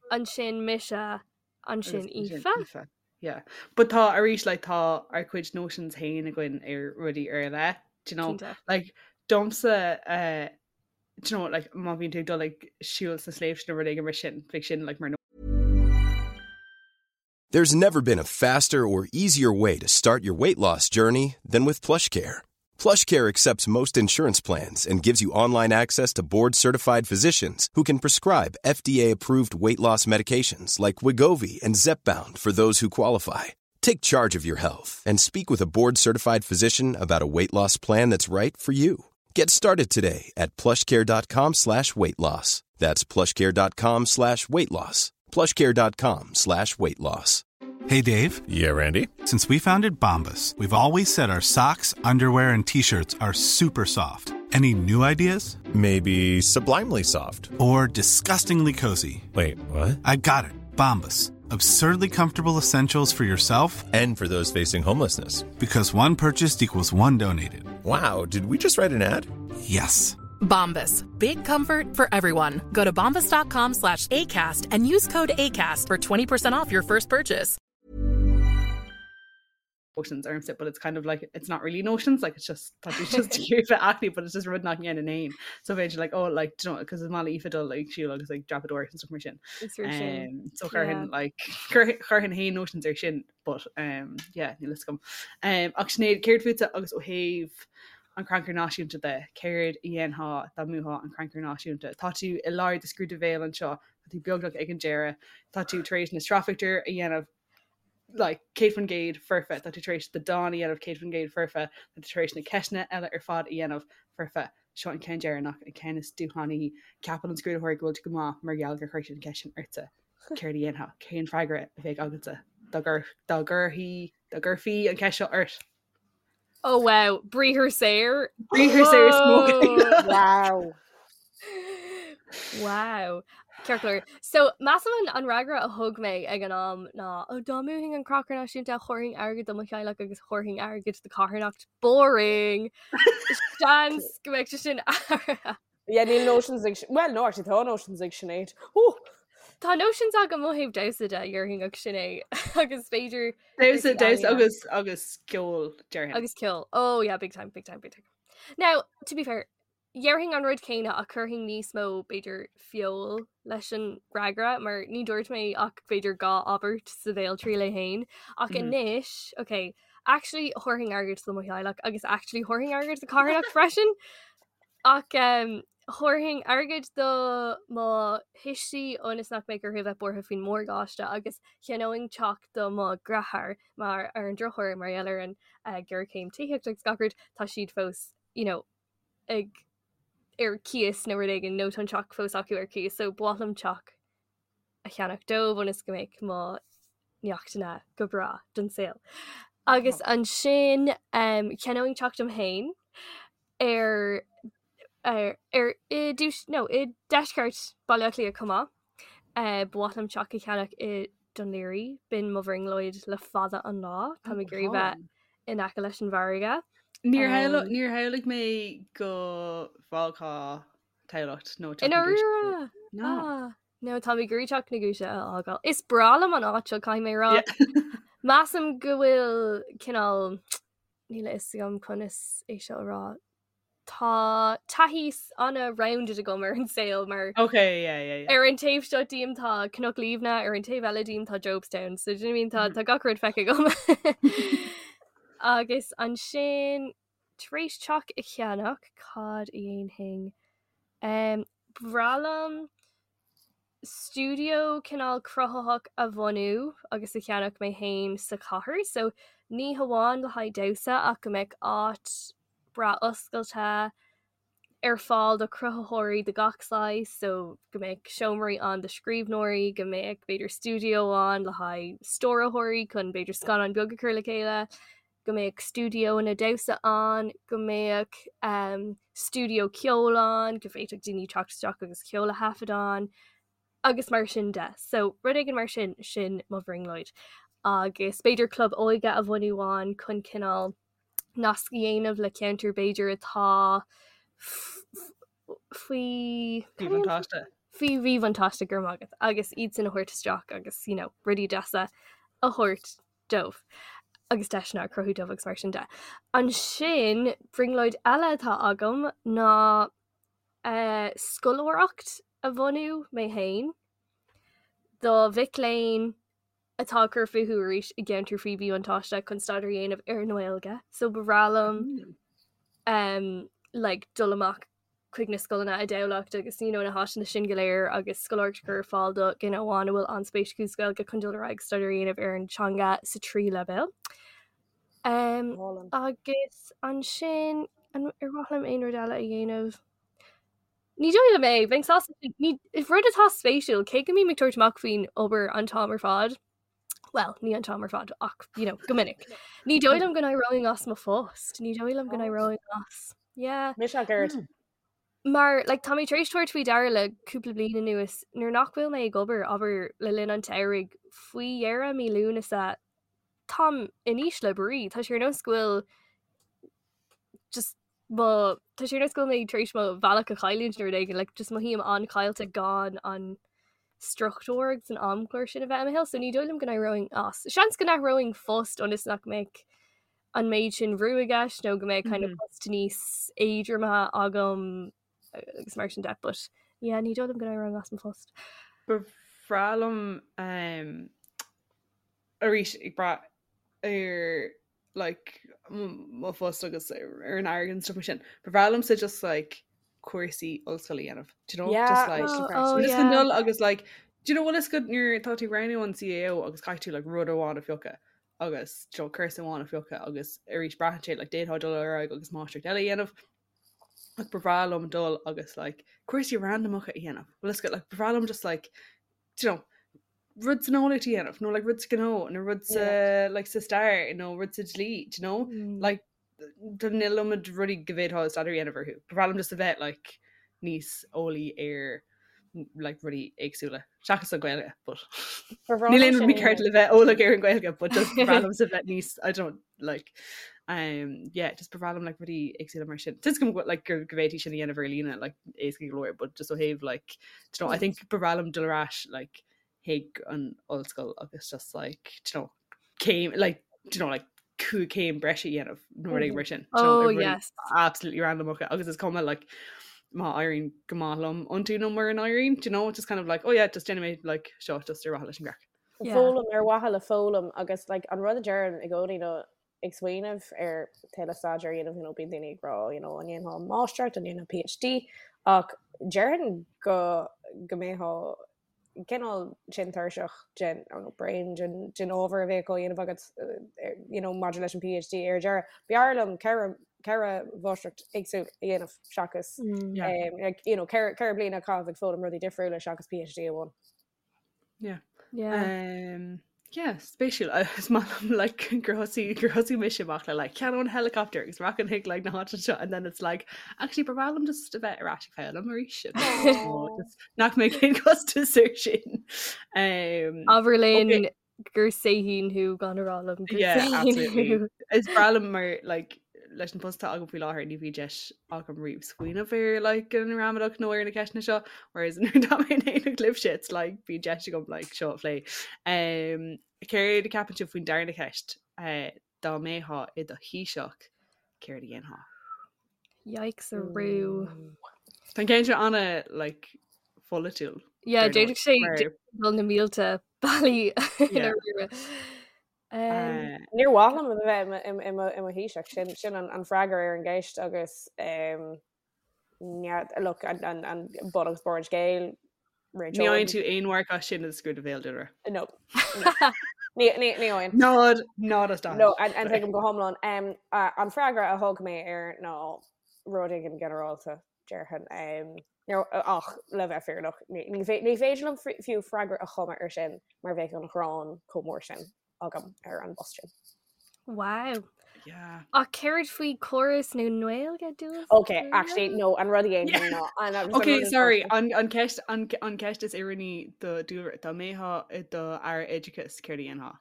E: ansin mise, ansin
F: Agus
E: Aoife.
F: Aoife. Yeah. But tá arís like tá ár gcuid notions féin againn ar rudaí ar leith, do you know?
E: Cinnte.
F: Like domsa uh, do you know like má bhíonn tú ag dul like siúl sna sléibhte nó rud éigin mar sin, bheadh sin like mar
H: There's never been a faster or easier way to start your weight loss journey than with PlushCare. PlushCare accepts most insurance plans and gives you online access to board-certified physicians who can prescribe FDA-approved weight loss medications like Wegovy and Zepbound for those who qualify. Take charge of your health and speak with a board-certified physician about a weight loss plan that's right for you. Get started today at plushcare.com slash weight loss. That's plushcare.com slash weight loss. plushcare.com slash weight loss.
D: Hey, Dave.
I: Yeah, Randy.
D: Since we founded Bombas, we've always said our socks, underwear, and t shirts are super soft.
I: Any new ideas?
H: Maybe sublimely soft.
I: Or disgustingly cozy.
H: Wait, what?
I: I got it. Bombas. Absurdly comfortable essentials for yourself
H: and for those facing homelessness.
I: Because one purchased equals one donated.
H: Wow, did we just write an ad?
I: Yes.
J: Bombas. Big comfort for everyone. Go to bombas.com slash ACAST and use code ACAST for 20% off your first purchase.
F: Notions ormsa, but it's kind of like it's not really notions, like it's just tá tú just ag bheith aclaí, but it's just rud nach ndéanaim féin. So bheinn like oh like do you know because is maith le Aoife dul like siúl agus like dreapadóireacht and stuff mar sin.
E: Is fíor sin.
F: Um, so chuirfinn
E: Yeah.
F: like chuirfinn féin notions ar sin, but um, yeah, níl fhios agam. Um, ach Sinéad, céard fútsa agus ó thaobh an Crannchur Náisiúnta de, céard a dhéanfá dá mbuafá an Crannchur Náisiúnta? Tá tú i lár do scrúdú béil anseo, tá tú beagnach ag an deireadh, tá tú tar éis na sraithphictiúir a dhéanamh like 100% foirfe, tá tú tar éis do dán a dhéanamh 100% foirfe, tá tú tar éis na ceisteanna eile ar fad a dhéanamh foirfe. Seo an ceann deireanach, an ceann is dúshlánaí. Ceapann an scrúdaitheoir go bhfuil tú go maith mar gheall gur chuir siad an cheist sin ortsa. Céard a dhéanfá? Cén freagra a bheadh agatsa dá gcuirfí dá gcuirfí an cheist seo ort?
E: Oh wow, briathar saor.
F: Briathar saor smoking.
G: Wow.
E: Wow. Ceart go leor. So measaim an an fhreagra a thug mé ag an am ná ó dá mbuafainn an Crannchur Náisiúnta thabharfainn airgead do mo theaghlach agus thabharfainn airgead do carthanacht. Boring! Seans go mbeidh sé sin athraithe.
G: Yeah, níl notions ag... Well, no, actually, tá notions ag Sinéad. Ooh!
E: Tá notions agam ó thaobh damhsa de, déarfainn ach sin é. Agus b'fhéidir...
F: Damhsa, damhsa agus, agus ceol, déarfainn.
E: Agus ceol. Oh yeah, big time, big time, big time. Now, to be fair, dhéarfainn an rud céanna ach chuirfinn níos mó, b'fhéidir, feoil leis an bhfreagra, mar ní dúirt mé ach b'fhéidir dhá abairt sa bhéaltriail é féin. Ach mm. anois, okay, actually thabharfainn airgead do mo theaghlach agus actually thabharfainn airgead do carthanacht freisin. Ach thabharfainn airgead do mo thuistí ionas nach mbeidh orthu a bheith buartha faoin morgáiste agus cheannóinn teach do mo dheartháir mar ar an drochuair mar gheall ar an ghéarchéim tithíochta agus gach rud tá siad fós you know ag ar cíos nó rud éigin nó tá an teach fós acu ar cíos so ba mhaith liom teach a cheannach dóibh ionas go mbeidh mo neachtanna go breá don saol. Agus ansin um, cheannóinn teach dom féin ar ar ar i dtús nó i deisceart Baile Átha Cliath chomh maith. Uh, ba mhaith liom teach a cheannach i Dún Laoghaire, b'in mo bhrionglóid le fada an lá. Tá mé ag iarraidh bheith in aice leis an bhfarraige.
F: Níor um, níor shamhlaigh mé go bhfágfá Tamhlacht nó
E: Teach na Giúise. No. Ah, no tá mé ag iarraidh Teach na Giúise a fhágáil. Is breá liom an áit seo caithfidh mé a rá. Measaim go bhfuil cineál níl a fhios agam conas é seo a rá. Tá taithí an-rounded agam ar an saol mar
F: Okay, yeah, yeah, yeah.
E: ar an taobh seo díom tá Cnoc Liamhna, ar an taobh eile díom tá Jobstown, so do you know what I mean tá mm. tá gach rud feicthe agam. Agus ansin Tar éis teach a cheannach, cad a dhéanfainn? Ba bhreá liom stiúideo cineál cruthaitheach a bhunú agus a cheannach mé féin sa chathair. So ní hamháin le haghaidh damhsa ach go mbeadh áit breá oscailte ar fáil do chruthaitheoirí de gach saghas, so go mbeadh seomraí ann do scríbhneoirí, go mbeadh b'fhéidir stiúideo ann le haghaidh stiúrthóirí chun b'fhéidir scannán beag a chur le chéile, go mbeadh stiúideoanna damhsa ann, go mbeadh um, stiúideo ceoil ann, go bhféadfadh daoine teacht isteach agus ceol a thaifead ann, agus mar sin de. So rud éigin mar sin, sin mo bhrionglóid. Agus b'fhéidir club óige a bhunú ann chun cineál nasc a dhéanamh le ceantar b'fhéidir atá faoi
F: mhíbhuntáiste.
E: Faoi mhíbhuntáiste go raibh maith agat agus iad sin a thabhairt isteach agus you know, rudaí deasa a thabhairt dóibh agus deiseanna a chruthú dóibh agus mar sin de. Ansin brionglóid eile atá agam ná uh, scoláireacht a bhunú mé féin do mhic léinn atá ag cur fúthu arís i gceantar faoi mhíbhuntáiste chun staidéar a dhéanamh ar an nGaeilge. So ba bhreá liom um, like, dul amach chuig na scoileanna i dTamhlacht agus you know, na háiteanna sin go léir agus scoláireacht a chur ar fáil do dhuine amháin a bhfuil an-spéis acu sa Ghaeilge chun dul ar aghaidh staidéar a dhéanamh ar an teanga sa tríú leibhéal. Um, agus ansin an ar mhaith liom aon rud eile a dhéanamh? Ní dóigh liom é, bheinn sásta ní rud atá spéisiúil, cé go mbím ag tabhairt amach faoin obair an t-am ar fad, well, ní an t-am ar fad ach you know, go minic. Ní dóigh liom go n-éireoinn as mo phost, ní dóigh liom go n-éireoinn as. Yeah.
G: Mise ach oiread.
E: Mar like, tá mé tar éis tabhairt faoi deara le cúpla bliain anuas nuair nach bhfuil mé ag obair abair le linn an tsamhraidh faoi dheireadh mí Lúnasa táim in ísle brí. Tá sé ar nós go bhfuil just mo tá sé ar nós go bhfuil mé tar éis mo bhealach a chailliúint nó rud éigin like, just mothaím an-chaillte gan an struchtúr agus an amchlár sin a bheith i mo shaol, so ní dóigh liom go n-éireoinn as. Seans go n-athróinn post ionas nach mbeadh an méid sin brú i gceist nó go mbeadh kind of post níos éadroime agam agus mar sin de, but yeah, ní dóigh liom go n-éireoinn as mo phost.
F: Ba bhreá liom um, arís ag brath ar like mo phost agus ar an airgead and stuff mar sin. Ba bhreá liomsa just like cúrsaí ollscoile a dhéanamh. Do you know?
G: Yeah,
F: Just like
E: Oh, oh,
F: just
E: yeah.
F: an dul agus like do you know bhfuil a fhios agat nuair atá tú ag roghnú an CAO agus caithfidh tú like rud amháin a phiocadh agus do you know, cúrsa amháin a phiocadh agus arís braitheann sé like d'fhéadfá dul ar aghaidh agus máistreacht eile a dhéanamh ach ba bhreá liom dul agus like cúrsaí randamacha a dhéanamh. Bhfuil a fhios agat like ba bhreá liom just like do you know rud san eolaíocht a dhéanamh nó like rud sa ghnó nó rud sa like sa stair nó rud sa dlí do you know
E: Mm.
F: like tá an iliomad rudaí go bhféadfá staidéar a dhéanamh orthu. Ba bhreá liom just a bheith like níos eolaí ar like rudaí éagsúla seachas an Ghaeilge but
G: Ba bhreá
F: níl
G: liom
F: aon rud
G: sin a
F: mícheart
G: dhéanamh.
F: le bheith eolach ar an Ghaeilge but just ba bhreá liomsa bheith níos I don't like um yeah just ba bhreá liom like rudaí éagsúla mar sin. Tá a fhios agam go like go go bhféadfaí sin a dhéanamh ar líne like éasca go leor but just ó thaobh like do you know I think ba bhreá liom dul ar ais like chuig an ollscoil agus just like do you know céim like do you know like cúig céim breise a dhéanamh nó rud éigin mar sin do you know,
E: Oh,
F: ar rudaí
E: yes.
F: absolutely randomacha agus is cuma like má éiríonn go maith liom iontu nó mura n-éiríonn do you know just kind of like oh yeah just déanfaidh mé like seo just ar mhaithe leis an gcraic.
E: Yeah.
G: Foghlaim ar mhaithe le foghlaim agus like an rud a deirim i gcónaí nó ag smaoineamh ar tuilleadh staidéir a dhéanamh you know bíonn daoine ag rá you know an ndéanfá máistreacht an ndéanfá PhD ach déarfainn go go mbeifeá cineál sin tuirseach den nó bréan den den ábhar a bheadh á dhéanamh agat you know maidir leis an PhD ar deireadh. B'fhearr liom ceithre ceithre mháistreacht éagsúil a dhéanamh seachas
E: Mm.
F: Yeah.
G: um, like, you know ceithre ceithre bliana a chaitheamh ag foghlaim rudaí difriúla seachas PhD amháin.
F: Yeah.
E: Yeah.
F: Um, yeah, spéisiúil is maith liom like gur thosaigh gur thosaigh mise amach le like ceannóinn helicopter agus rachainn chuig like na háite seo and then it's like actually ba bhreá liom just a bheith ar ais ag foghlaim arís Oh, just nach mbeidh aon costas air sin. Um,
E: Abair linn
F: okay.
E: gur saoithín thú gan a rá liom gur
F: Yeah,
E: saoithín
F: absolutely.
E: thú.
F: Is breá liom mar like leis an post atá agam faoi láthair ní bhíonn deis agam riamh smaoineamh ar like an ramadach nó ar na ceisteanna seo whereas nuair atá mé in éineacht libhse it's like bíonn deis agam like seo a phlé. Um, céard a ceapann sibh faoin darna ceist? Uh, dá mbeifeá i do Thaoiseach, céard a dhéanfá?
E: Yikes arú.
F: Tá an ceann seo ana like pholaitiúil.
E: Yeah,
F: dar ndóigh,
E: d'fhéadfadh sé
F: mar-
E: dul na mílte bealaí
F: Yeah.
E: ina rire. Um,
F: Uh,
G: Níor mhaith liom a bheith i mo- i mo- i mo- i mo Thaoiseach sin sin an an freagra ar an gceist agus um, yeah, look an an an bun agus barr an scéil
F: Ní fhaigheann tú aon mharc as sin i scrúdú béil Dúlra.
G: No. Ní ní ní fhaigheann.
F: Nád nád as
G: No, an an tuigim go hiomlán. Um, a- an freagra a thug mé air ná rud éigin ginearálta déarfainn. Um, nó ach le bheith fírinneach ní ní fé- ní féidir liom fri- fiú freagra a chumadh ar sin mar bheadh an ghráin chomh mór sin agam ar an bpost sin.
E: Wow.
F: Yeah.
E: Ach céard faoi córas na Gaeilge dúil?
G: Okay, actually no, an rud a dhéanfainn ná an an
F: Okay,
G: rud is
F: sorry, an an ceist an an ceist is oiriúnaí do Dúlra dá mbeifeá i do aire oideachais céard a dhéanfá.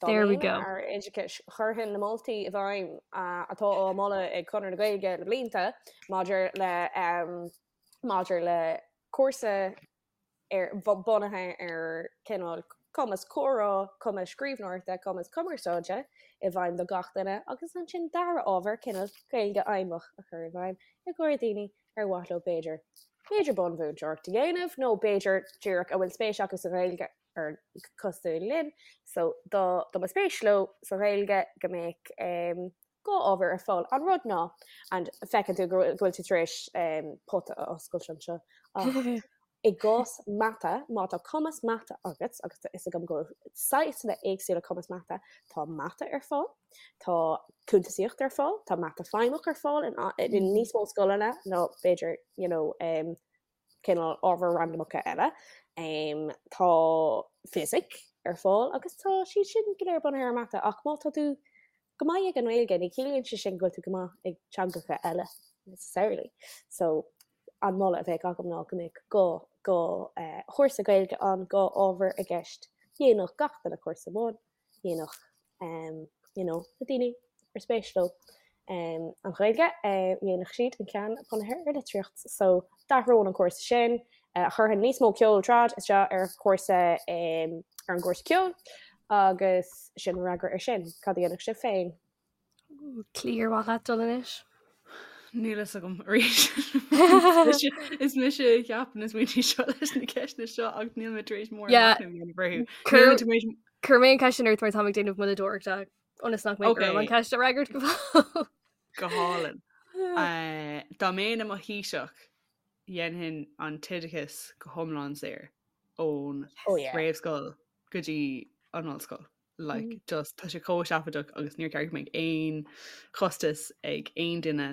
G: Dá
E: There we
G: mbeinn
E: go.
G: Aire oideachais chuirfinn na moltaí i bhfeidhm atá á moladh ag Conradh na Gaeilge le blianta maidir le um, maidir le cúrsa ar bunaithe ar cineál cumas comhrá, cumas scríbhneoireachta, cumas cumarsáide i bhfeidhm do gach duine agus ansin dara ábhar cineál Gaeilge fheidhmeach a chur i bhfeidhm i gcomhair daoine ar mhaith leo b'fhéidir b'fhéidir bunmhúinteoireacht a dhéanamh nó b'fhéidir díreach a bhfuil spéis acu sa Ghaeilge ar cosúil linn so dá dá mba spéis leo sa Ghaeilge go mbeadh um, dhá ábhar ar fáil. An rud ná, and feiceann tú go bhfuil tú tar éis pota a oscailt anseo, ach i gcás mata, má tá cumas mata agat, agus tá fhios agam go bhfuil saghsanna éagsúla cumas mata, tá mata ar fáil, tá cuntasaíocht ar fáil, tá mata feidhmeach ar fáil in níos mó scoileanna ná b'fhéidir, you know, cineál ábhair randamacha eile. Tá fisic ar fáil agus tá siad sin go léir bunaithe ar mata ach má tá tú go maith ag an nGaeilge ní chiallaíonn sé sin go bhfuil tú go maith ag teangacha eile. necessarily. So an moladh a bheadh agam ná go mbeadh go go eh, chúrsa Gaeilge ann, go ábhar i gceist. Dhéanfadh gach duine cúrsa amháin, dhéanfadh um, you know, na daoine ar spéis leo um, an Ghaeilge, eh, dhéanfadh siad an ceann bunaithe ar litríocht. So d'athróinn an cúrsa sin, eh, chuirfinn níos mó ceol trad isteach ar chúrsa um, ar an gcúrsa ceoil agus sin an fhreagra ar sin. Cad a dhéanfadh sibh féin?
E: Clí ar mhaith leat dul anois?
F: Níl fhios agam arís. Is mise a cheapann na smaointe seo leis na ceisteanna seo ach níl mé tar éis mórán machnaimh a dhéanamh orthu.
E: Níl mé tar éis Cuir mé an ceist sin ort mar táim ag déanamh moilleadóireachta ionas nach mbeidh orm an ceist a fhreagairt go
F: fóill. Go hálainn. Dá mbeinn i mo Thaoiseach, dhéanfainn an t-oideachas go hiomlán saor ón réamhscoil go dtí an ollscoil. Like, mm. just tá sé chomh seafóideach agus níor cheart go mbeadh aon chostas ag aon duine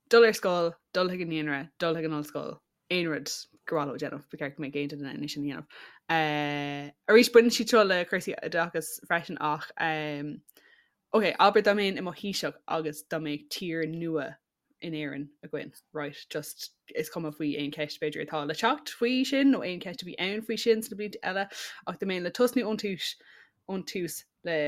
F: dul ar scoil, dul chuig an naíonra, dul chuig an ollscoil, aon rud gur mhaith leo déanamh, ba cheart go mbeadh aon duine in ann é sin a dhéanamh. Uh, arís baineann siad seo le cúrsaí oideachais freisin ach um, ok, abair dá mbeinn i mo Thaoiseach agus dá mbeadh tír nua in Éirinn againn, right, just is cuma faoi aon cheist b'fhéidir atá le teacht faoi sin nó aon cheist a bhí ann faoi sin sna blianta eile ach dá mbeinn le tosnú ón tús ón tús le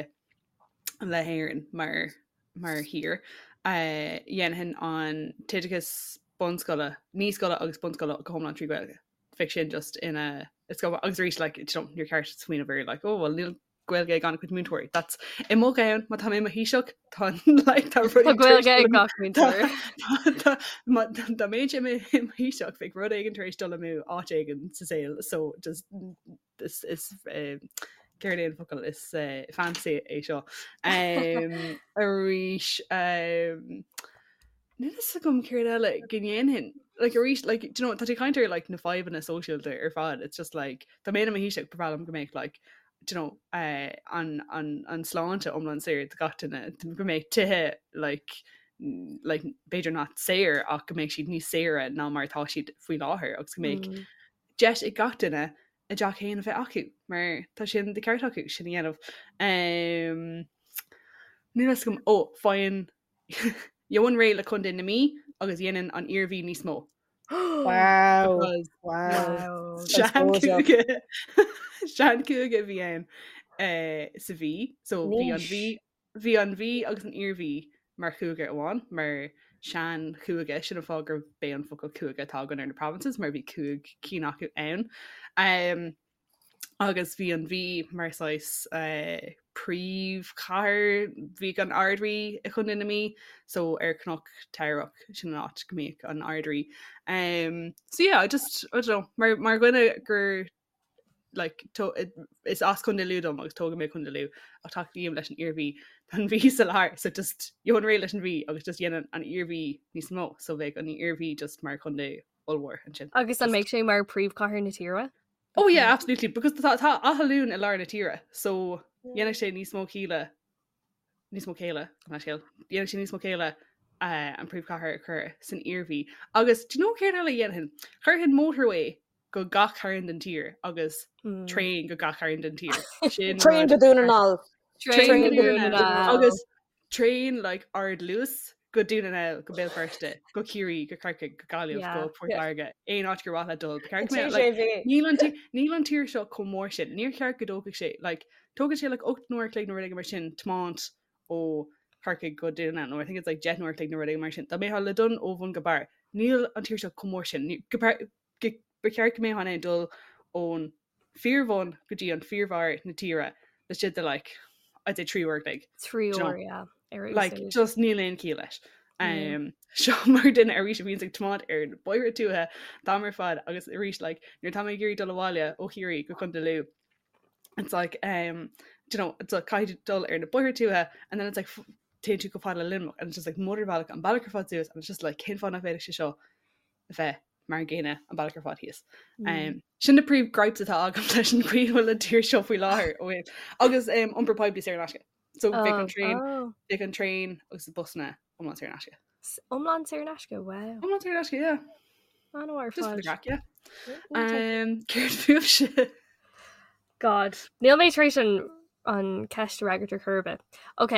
F: le hÉirinn mar mar thír uh, dhéanfainn an t-oideachas bunscoile, naíscoile agus bunscoile go hiomlán trí Ghaeilge. Bheadh sin just ina it's go agus arís like, you know, níor cheart smaoineamh ar like, oh well níl Gaeilge ag an-chuid múinteoirí. That's i mo cheann má tá mé i mo Thaoiseach tá like, tá
E: rudaí Tá Gaeilge ag gach múinteoir.
F: Dá mbeinnse i mo Thaoiseach bheadh rud éigin tar éis dul amú áit éigin sa saol so just is is eh, céard é an focal is eh, fantasy é seo. Um, arís um, Níl fhios agam céard eile go ndéanfainn. Like arís, like, do you know, tá tú ag caint ar like na fadhbanna sóisialta ar fad. It's just like, dá mbeinn i mo Thaoiseach, ba bhreá liom go mbeadh like, do you know, eh, an, an, an sláinte iomlán saor do gach duine, go mbeadh tithe like, like, b'fhéidir not saor ach go mbeadh siad níos saoire ná mar atá siad faoi láthair agus go mbeadh mm. deis ag gach duine a dteach féin a bheith acu mar tá sin de ceart acu sin a dhéanamh. Um, Níl fhios agam ó faighinn Gheobhainn réidh le Contae na Mí agus dhéanfainn an Iarmhí níos mó.
G: Wow. Wow.
F: Seanchúige Seanchúige a bhí ann eh, sa Mhí, so bhí an Mhí bhí an Mhí agus an Iarmhí mar chúige amháin, mar seanchúige, sin an fáth gurb é an focal cúige atá againn ar na provinces, mar bhí cúig cinn acu ann. Um, agus bhí an Mhí mar saghas príomhchathair, bhíodh an Ard-Rí i Chontae na Mí, so ar Chnoc Teamhrach, sin an áit go mbíodh an Ard-Rí. Um, so yeah, I just, I don't know, mar, mar dhuine gur like, to, is as Contae Lú dom agus tógadh mé i Contae Lú ach tacaím leis an Iarmhí, tá an Mhí sa lár, so just gheobhainn réidh leis an Mhí agus just dhéanfainn an Iarmhí níos mó, so bheadh an Iarmhí just mar chontae ollmhór ansin.
E: Agus an mbeadh sé mar príomhchathair na tíre?
F: Oh yeah, absolutely, because tá tá Áth Luain i lár na tíre, so dhéanfadh sé níos mó céille níos mó céille an scéal dhéanfadh sé níos mó céille uh, an príomhchathair a chur san Iarmhí. Agus do you know céard eile a dhéanfainn? Chuirfinn motorway go gach cearn den tír agus mm. traein go gach cearn den tír.
G: Sin Traein go Dún na nGall.
F: Traein go Dún na nGall. Agus traein like ardluas go Dún na nGall, go Béal Feirste, go Ciarraí, go Corcaigh, go Gaillimh, go Port Láirge, aon áit gur mhaith leat dul. Ba cheart go mbeadh, like, níl an tí- níl an tír seo chomh mór sin. Níor cheart go dtógfadh sé, like, tógann sé like 8 n-uair a chloig nó rud éigin mar sin tiomáint ó Chorcaigh go Dún na nGall, nó I think it's like 10 n-uair a chloig nó rud éigin mar sin. Dá mbeifeá le dul ó bhun go barr, níl an tír seo chomh mór sin. Ní- go par- go- Ba cheart go mbeifeá in ann dul ón fíorbhun go dtí an fíorbharr na tíre laistigh de like I'd say 3 uair a chloig.
E: 3 uair, yeah.
F: Ar Like, úsáid. just níl aon chiall leis. Mm. Um, seo mar duine arís a bhíonns ag tiomáint ar na bóithre tuaithe an t-am ar fad agus arís like, nuair atá mé ag iarraidh dul abhaile ó Chiarraí go Contae Lú it's like um, do you know, it's like caithfidh tú dul ar na bóithre tuaithe and then it's like f- téann tú chomh fada le Luimneach and it's just like mótarbhealach an bealach ar fad suas and it's just like cén fáth nach bhféadfadh sé seo a bheith mar an gcéanna an bealach ar fad thíos. Mm. Sin na príomh gripes atá agam leis an gcaoi a bhfuil an tír seo faoi láthair ó thaobh- agus um, iompar poiblí saor in aisce. So bheadh an traein oh. bheadh an traein agus na busanna iomlán saor in aisce.
E: Iomlán saor in aisce, wow.
F: Iomlán saor in aisce, yeah.
E: An-mhaith ar
F: Just for the fad. craic, yeah. Um, céard fúibhse?
E: God. Níl mé tar éis an, an ceist a fhreagairt ar chor ar bith. Ok,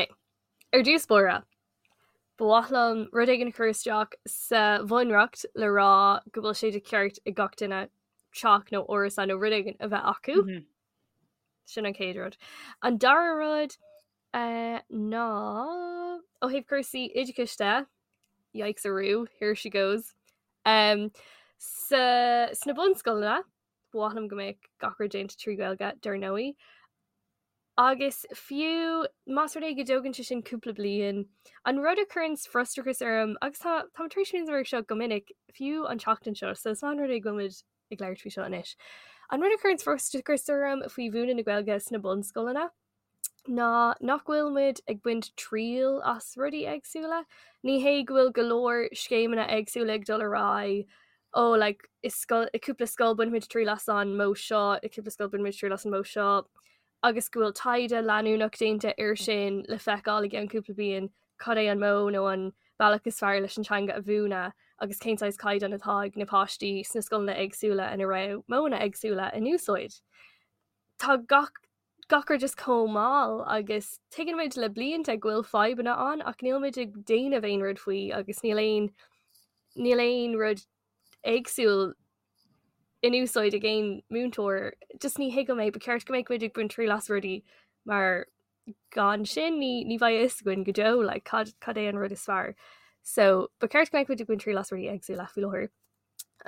E: ar dtús báire. Ba mhaith liom rud éigin a chur isteach sa bhunreacht le rá go bhfuil sé de cheart ag gach duine teach nó árasán nó rud éigin a bheith acu. Mm -hmm. Sin an chéad rud. An dara rud uh, ná ó thaobh cúrsaí oideachais de, yikes arú, here she goes. Um, sa, sna bunscoileanna, ba mhaith liom go mbeadh gach rud déanta trí Ghaeilge dar ndóigh. Agus fiú más rud é go dtógann sé sin cúpla bliain, an rud a chuireann frustrachas orm, agus tá táim tar éis smaoineamh air seo go minic, fiú an tseachtain seo, so is maith an rud é go bhfuil muid ag labhairt faoi seo anois, an rud a chuireann frustrachas orm faoi mhúineadh na Gaeilge sna bunscoileanna ná nach bhfuil muid ag baint triail as rudaí éagsúla. Ní hé go bhfuil go leor scéimeanna éagsúla ag dul ar aghaidh, ó like i scoil, i cúpla scoil bainfimid triail as an modh seo, i cúpla scoil bainfimid triail as an modh seo, agus go bhfuil taighde leanúnach déanta air sin le feiceáil i gceann cúpla bliain cad é an modh nó an bealach is fearr leis an teanga a mhúineadh agus cén saghas caighdeán atá ag na páistí sna scoileanna éagsúla ina raibh modhanna éagsúla in úsáid. Tá gach gach rud just chomh mall agus tuigeann muid le blianta go bhfuil fadhbanna ann ach níl muid ag déanamh aon rud faoi agus níl aon níl aon rud éagsúil in úsáid ag aon múinteoir. Just ní thuigim é, ba cheart go mbeadh muid ag baint triail as rudaí mar gan sin ní ní bheidh a fhios againn go deo like, cad cad é an rud is fearr. So ba cheart go mbeadh muid ag baint triail as rudaí éagsúla faoi láthair.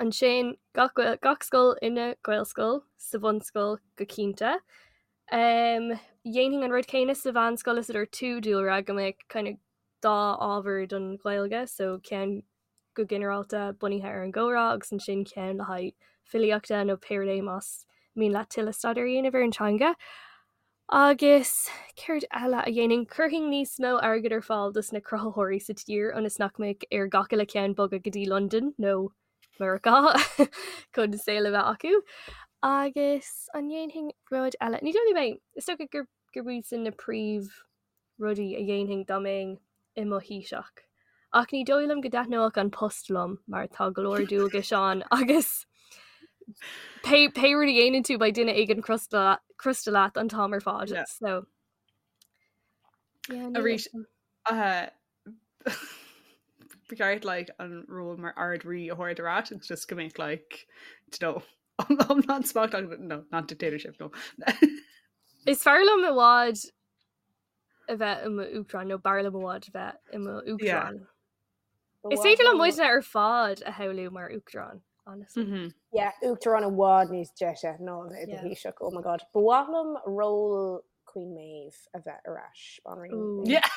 E: Ansin gach gach scoil ina Gaelscoil sa bhunscoil go cinnte. Um, dhéanfainn an rud céanna sa mheánscoil is a dúirt tú Dúlra go mbeadh kind of dá ábhar don Ghaeilge, so ceann go ginearálta bunaithe ar an gcomhrá agus ansin ceann le haghaidh filíochta nó pé rud é más mian leat tuilleadh staidéir a dhéanamh ar an teanga. Agus céard eile a dhéanfainn? Chuirfinn níos mó airgid ar fáil dos na cruthaitheoirí sa tír ionas nach mbeadh ar gach uile cheann bogadh go dtí Londain nó Meiriceá chun saol a bheith acu. Agus an ndéanfainn rud eile? Ní dóigh liom é. Is dócha gur gurb iad sin na príomh rudaí a dhéanfainn dá mbeinn i mo Thaoiseach. Ach ní dóigh liom go dtaitneodh an post liom mar tá go leor dualgais ann agus pé pé rud a dhéanann tú beidh duine éigin crosta crosta leat an t-am ar fad. Yeah. So yeah, níl
F: Arís uh, ba cheart like an ról mar Ard-Rí a thabhairt ar ais agus just go mbeadh like you know iomlán smacht agat no not dictatorship no.
E: Is fearr liom i bhfad a bheith i m'uachtarán nó b'fhearr liom i bhfad a bheith i m'uachtarán. Is féidir liom muidne ar fad a shamhlú mar uachtarán, honestly.
F: Mm -hmm.
G: Yeah, uachtarán i bhfad níos deise ná a bheith i do Thaoiseach, oh my god. Ba mhaith liom ról Queen Maeve a bheith ar ais, banríon.
F: Yeah.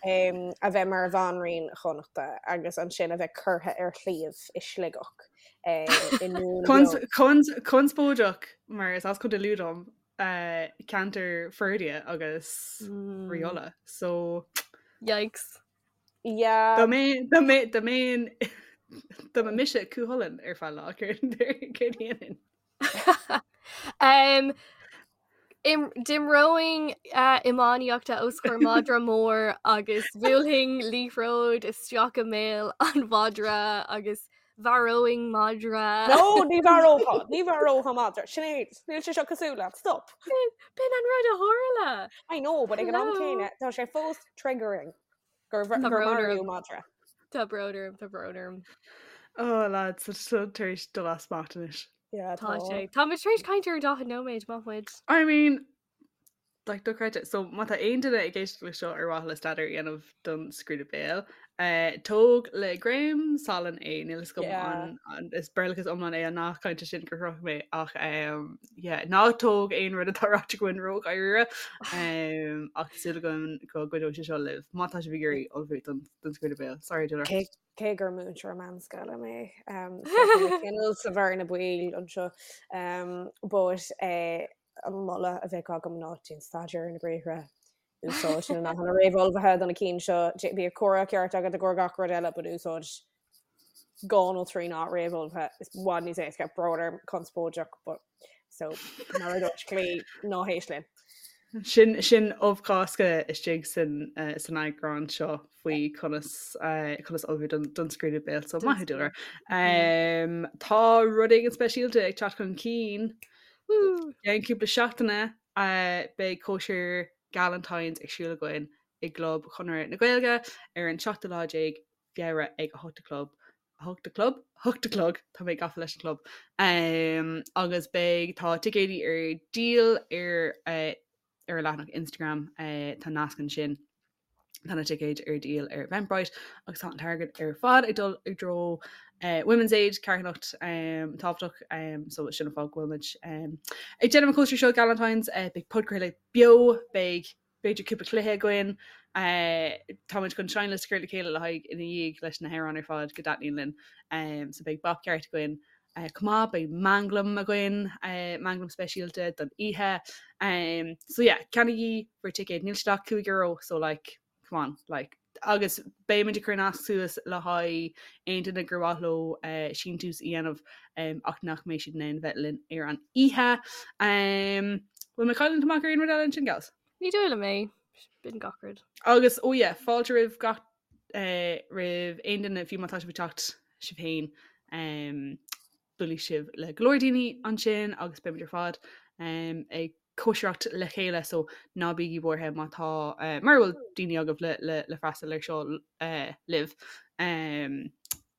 G: Um, a bheith mar bhanríon Chonnachta agus ansin a bheith curtha ar shliabh i Sligeach. Um, i nDún
F: Conspóideach mar is as Contae Lú dom ceantar Ferdia agus Rí Uladh so
E: Yikes.
G: Yeah.
F: Dá mbeinn dá mbeinn dá mbeinn dá mba mise Cú Chulainn ar feadh lá céard céard a dhéanfainn?
E: Um, im, d'imreoinn uh, iománaíochta os comhair madra mór agus bhuailfinn liathróid isteach i mbéal an mhadra agus Mharóinn madra.
G: No, ní mharófá, ní mharófá madra. Sinéad, níl sé seo cosúil leat, stop.
E: B'in an rud a tharla.
G: I know, but ag an am céanna, tá sé fós triggering gur maraíodh madra.
E: Tá brón orm, tá brón orm.
F: Oh lads, tá seo tar éis dul as smacht anois.
G: Yeah,
E: tá sé. Tá muid tar éis caint ar 40 nóiméad, maith muid.
F: I mean, Like, dochreidte. So, má tá aon duine ag éisteacht le seo ar mhaithe le staidéar a dhéanamh don scrúdú béil, eh, tóg le greim salainn é, níl fhios agam
G: Yeah.
F: an, an, is Béarlachas iomlán é an nath cainte sin gur shroich mé ach um, yeah, ná tóg aon rud atá ráite againn ródháiríre um, ach tá súil agam go gcuideoidh sé seo libh má tá sibh ag iarraidh ullmhú don, don scrúdú béil. Sorry, Dúlra.
G: Cé, cé gur múinteoir meánscoile mé, um, so tá mé cineál sa bhearna baoil anseo, um, but, eh, An moladh a bheadh agam ná déan staidéar ar na briathra, úsáid na nathanna réamhullmhaithe do na cinn seo, bíodh comhrá ceart agat i gcomhair gach rud eile but úsáid dhá nó trí nath réamhullmhaithe, is i bhfad níos éasca, brón orm, conspóideach but so mar a dúirt Claí, ná héist linn.
F: Sin sin ubh Chásca istigh san san eagrán seo faoi conas conas ullmhú don don scrúdú béil so maith thú Dúlra. Tá rud éigin speisialta ag teacht chun cinn I gceann cúpla seachtaine beidh cóisir Galentine's ag siúl againn. i gClub Chonradh na Gaeilge ar an seachtú lá déag Feabhra ag a hocht a chlog, a hocht a chlog? Hocht a chlog, tá mé gafa leis an chlub. Agus beidh, tá ticéidí ar díol ar ar a leathanach Instagram, tá nasc ansin. Tá na ticéid ar díol ar Eventbrite agus tá an t-airgead ar fad ag dul i dtreo Women's Aid, carthanacht tábhachtach, so sin an fáth go bhfuil muid ag déanamh an cóisir seo Galentine's. Beidh podchraoladh beo, beidh b'fhéidir cúpla cluiche againn. Táimid chun seinnliosta a chur le chéile le haghaidh ina dhiaidh leis na hamhráin ar fad go dtaitníonn linn. So beidh bap ceart againn chomh maith, beidh manglam againn, manglam speisialta don oíche. So yeah, ceannaígí bhur ticéid, níl siad ach €5 so like, come on, like. Agus beidh muid ag cur nasc suas le haghaidh aon duine gur mhaith leo síntiús a dhéanamh ach nach mbeidh siad in ann bheith linn ar an oíche. Bhfuil mé ag cailliúint amach ar aon rud eile ansin, gals?
E: Ní dóigh liom é. B'in gach rud.
F: Agus, oh yeah, fáilte roimh gach, roimh aon duine, fiú má tá sibh ag teacht sibh féin, buailfidh sibh le go leor daoine ansin agus beimid ar fad ag cóisireacht le chéile so ná bígí buartha má tá mura bhfuil daoine agaibh le le le freastal ar seo libh.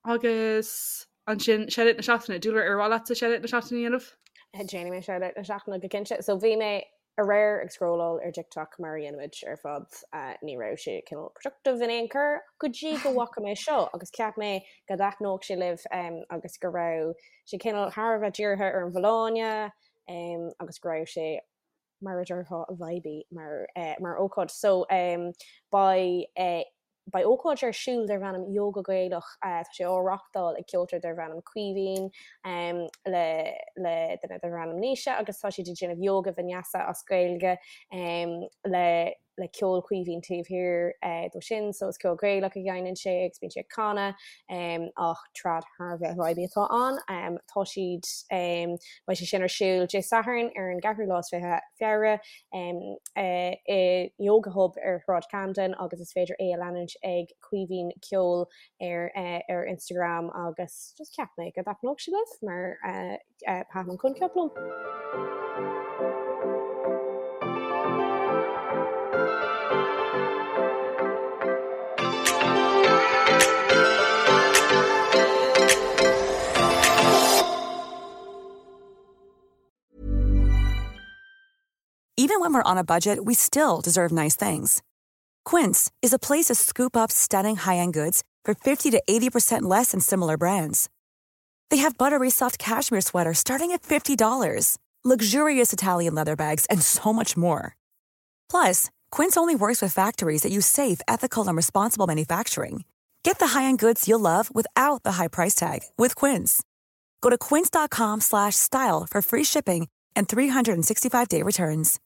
F: Agus ansin shoutout na seachtaine, Dúlra ar mhaith leatsa shoutout na seachtaine a dhéanamh?
G: Déanfaidh mé shoutout na seachtaine go cinnte. So bhí mé aréir ag scrolláil ar TikTok mar a dhéanaimid ar fad, ní raibh sé cineál productive in aon chor go dtí go bhfaca mé seo agus cheap mé go dtaitneodh sé libh agus go raibh sé cineál thar a bheith dírithe ar an bhfolláine agus go raibh sé mar a déarfá vibey mar mar ócáid. So beidh beidh ócáid ar siúl darb ainm Yoga Gaelach, tá sé á reachtáil ag ceoltóir darb ainm Caoimhín le le duine darb ainm Naoise agus tá siad ag déanamh yoga vinyasa as Gaeilge le le ceol Chaoimhín taobh thiar dó sin, so is ceol Gaelach a sheinneann sé agus bíonn sé ag canadh ach trad thar a bheith vibey atá ann. Tá siad, beidh sé sin ar siúl Dé Sathairn ar an gceathrú lá is 20 Feabhra i Yoga Hub ar Shráid Camden agus is féidir é a leanúint ag Caoimhín Ceol ar ar Instagram agus just cheap mé go dtaitneodh sé libh mar Thaitin an coincheap liom.
K: Even when we're on a budget, we still deserve nice things. Quince is a place to scoop up stunning high-end goods for 50 to 80% less than similar brands. They have buttery soft cashmere sweaters starting at $50, luxurious Italian leather bags, and so much more. Plus, Quince only works with factories that use safe, ethical, and responsible manufacturing. Get the high-end goods you'll love without the high price tag with Quince. Go to quince.com/style for free shipping and 365-day returns.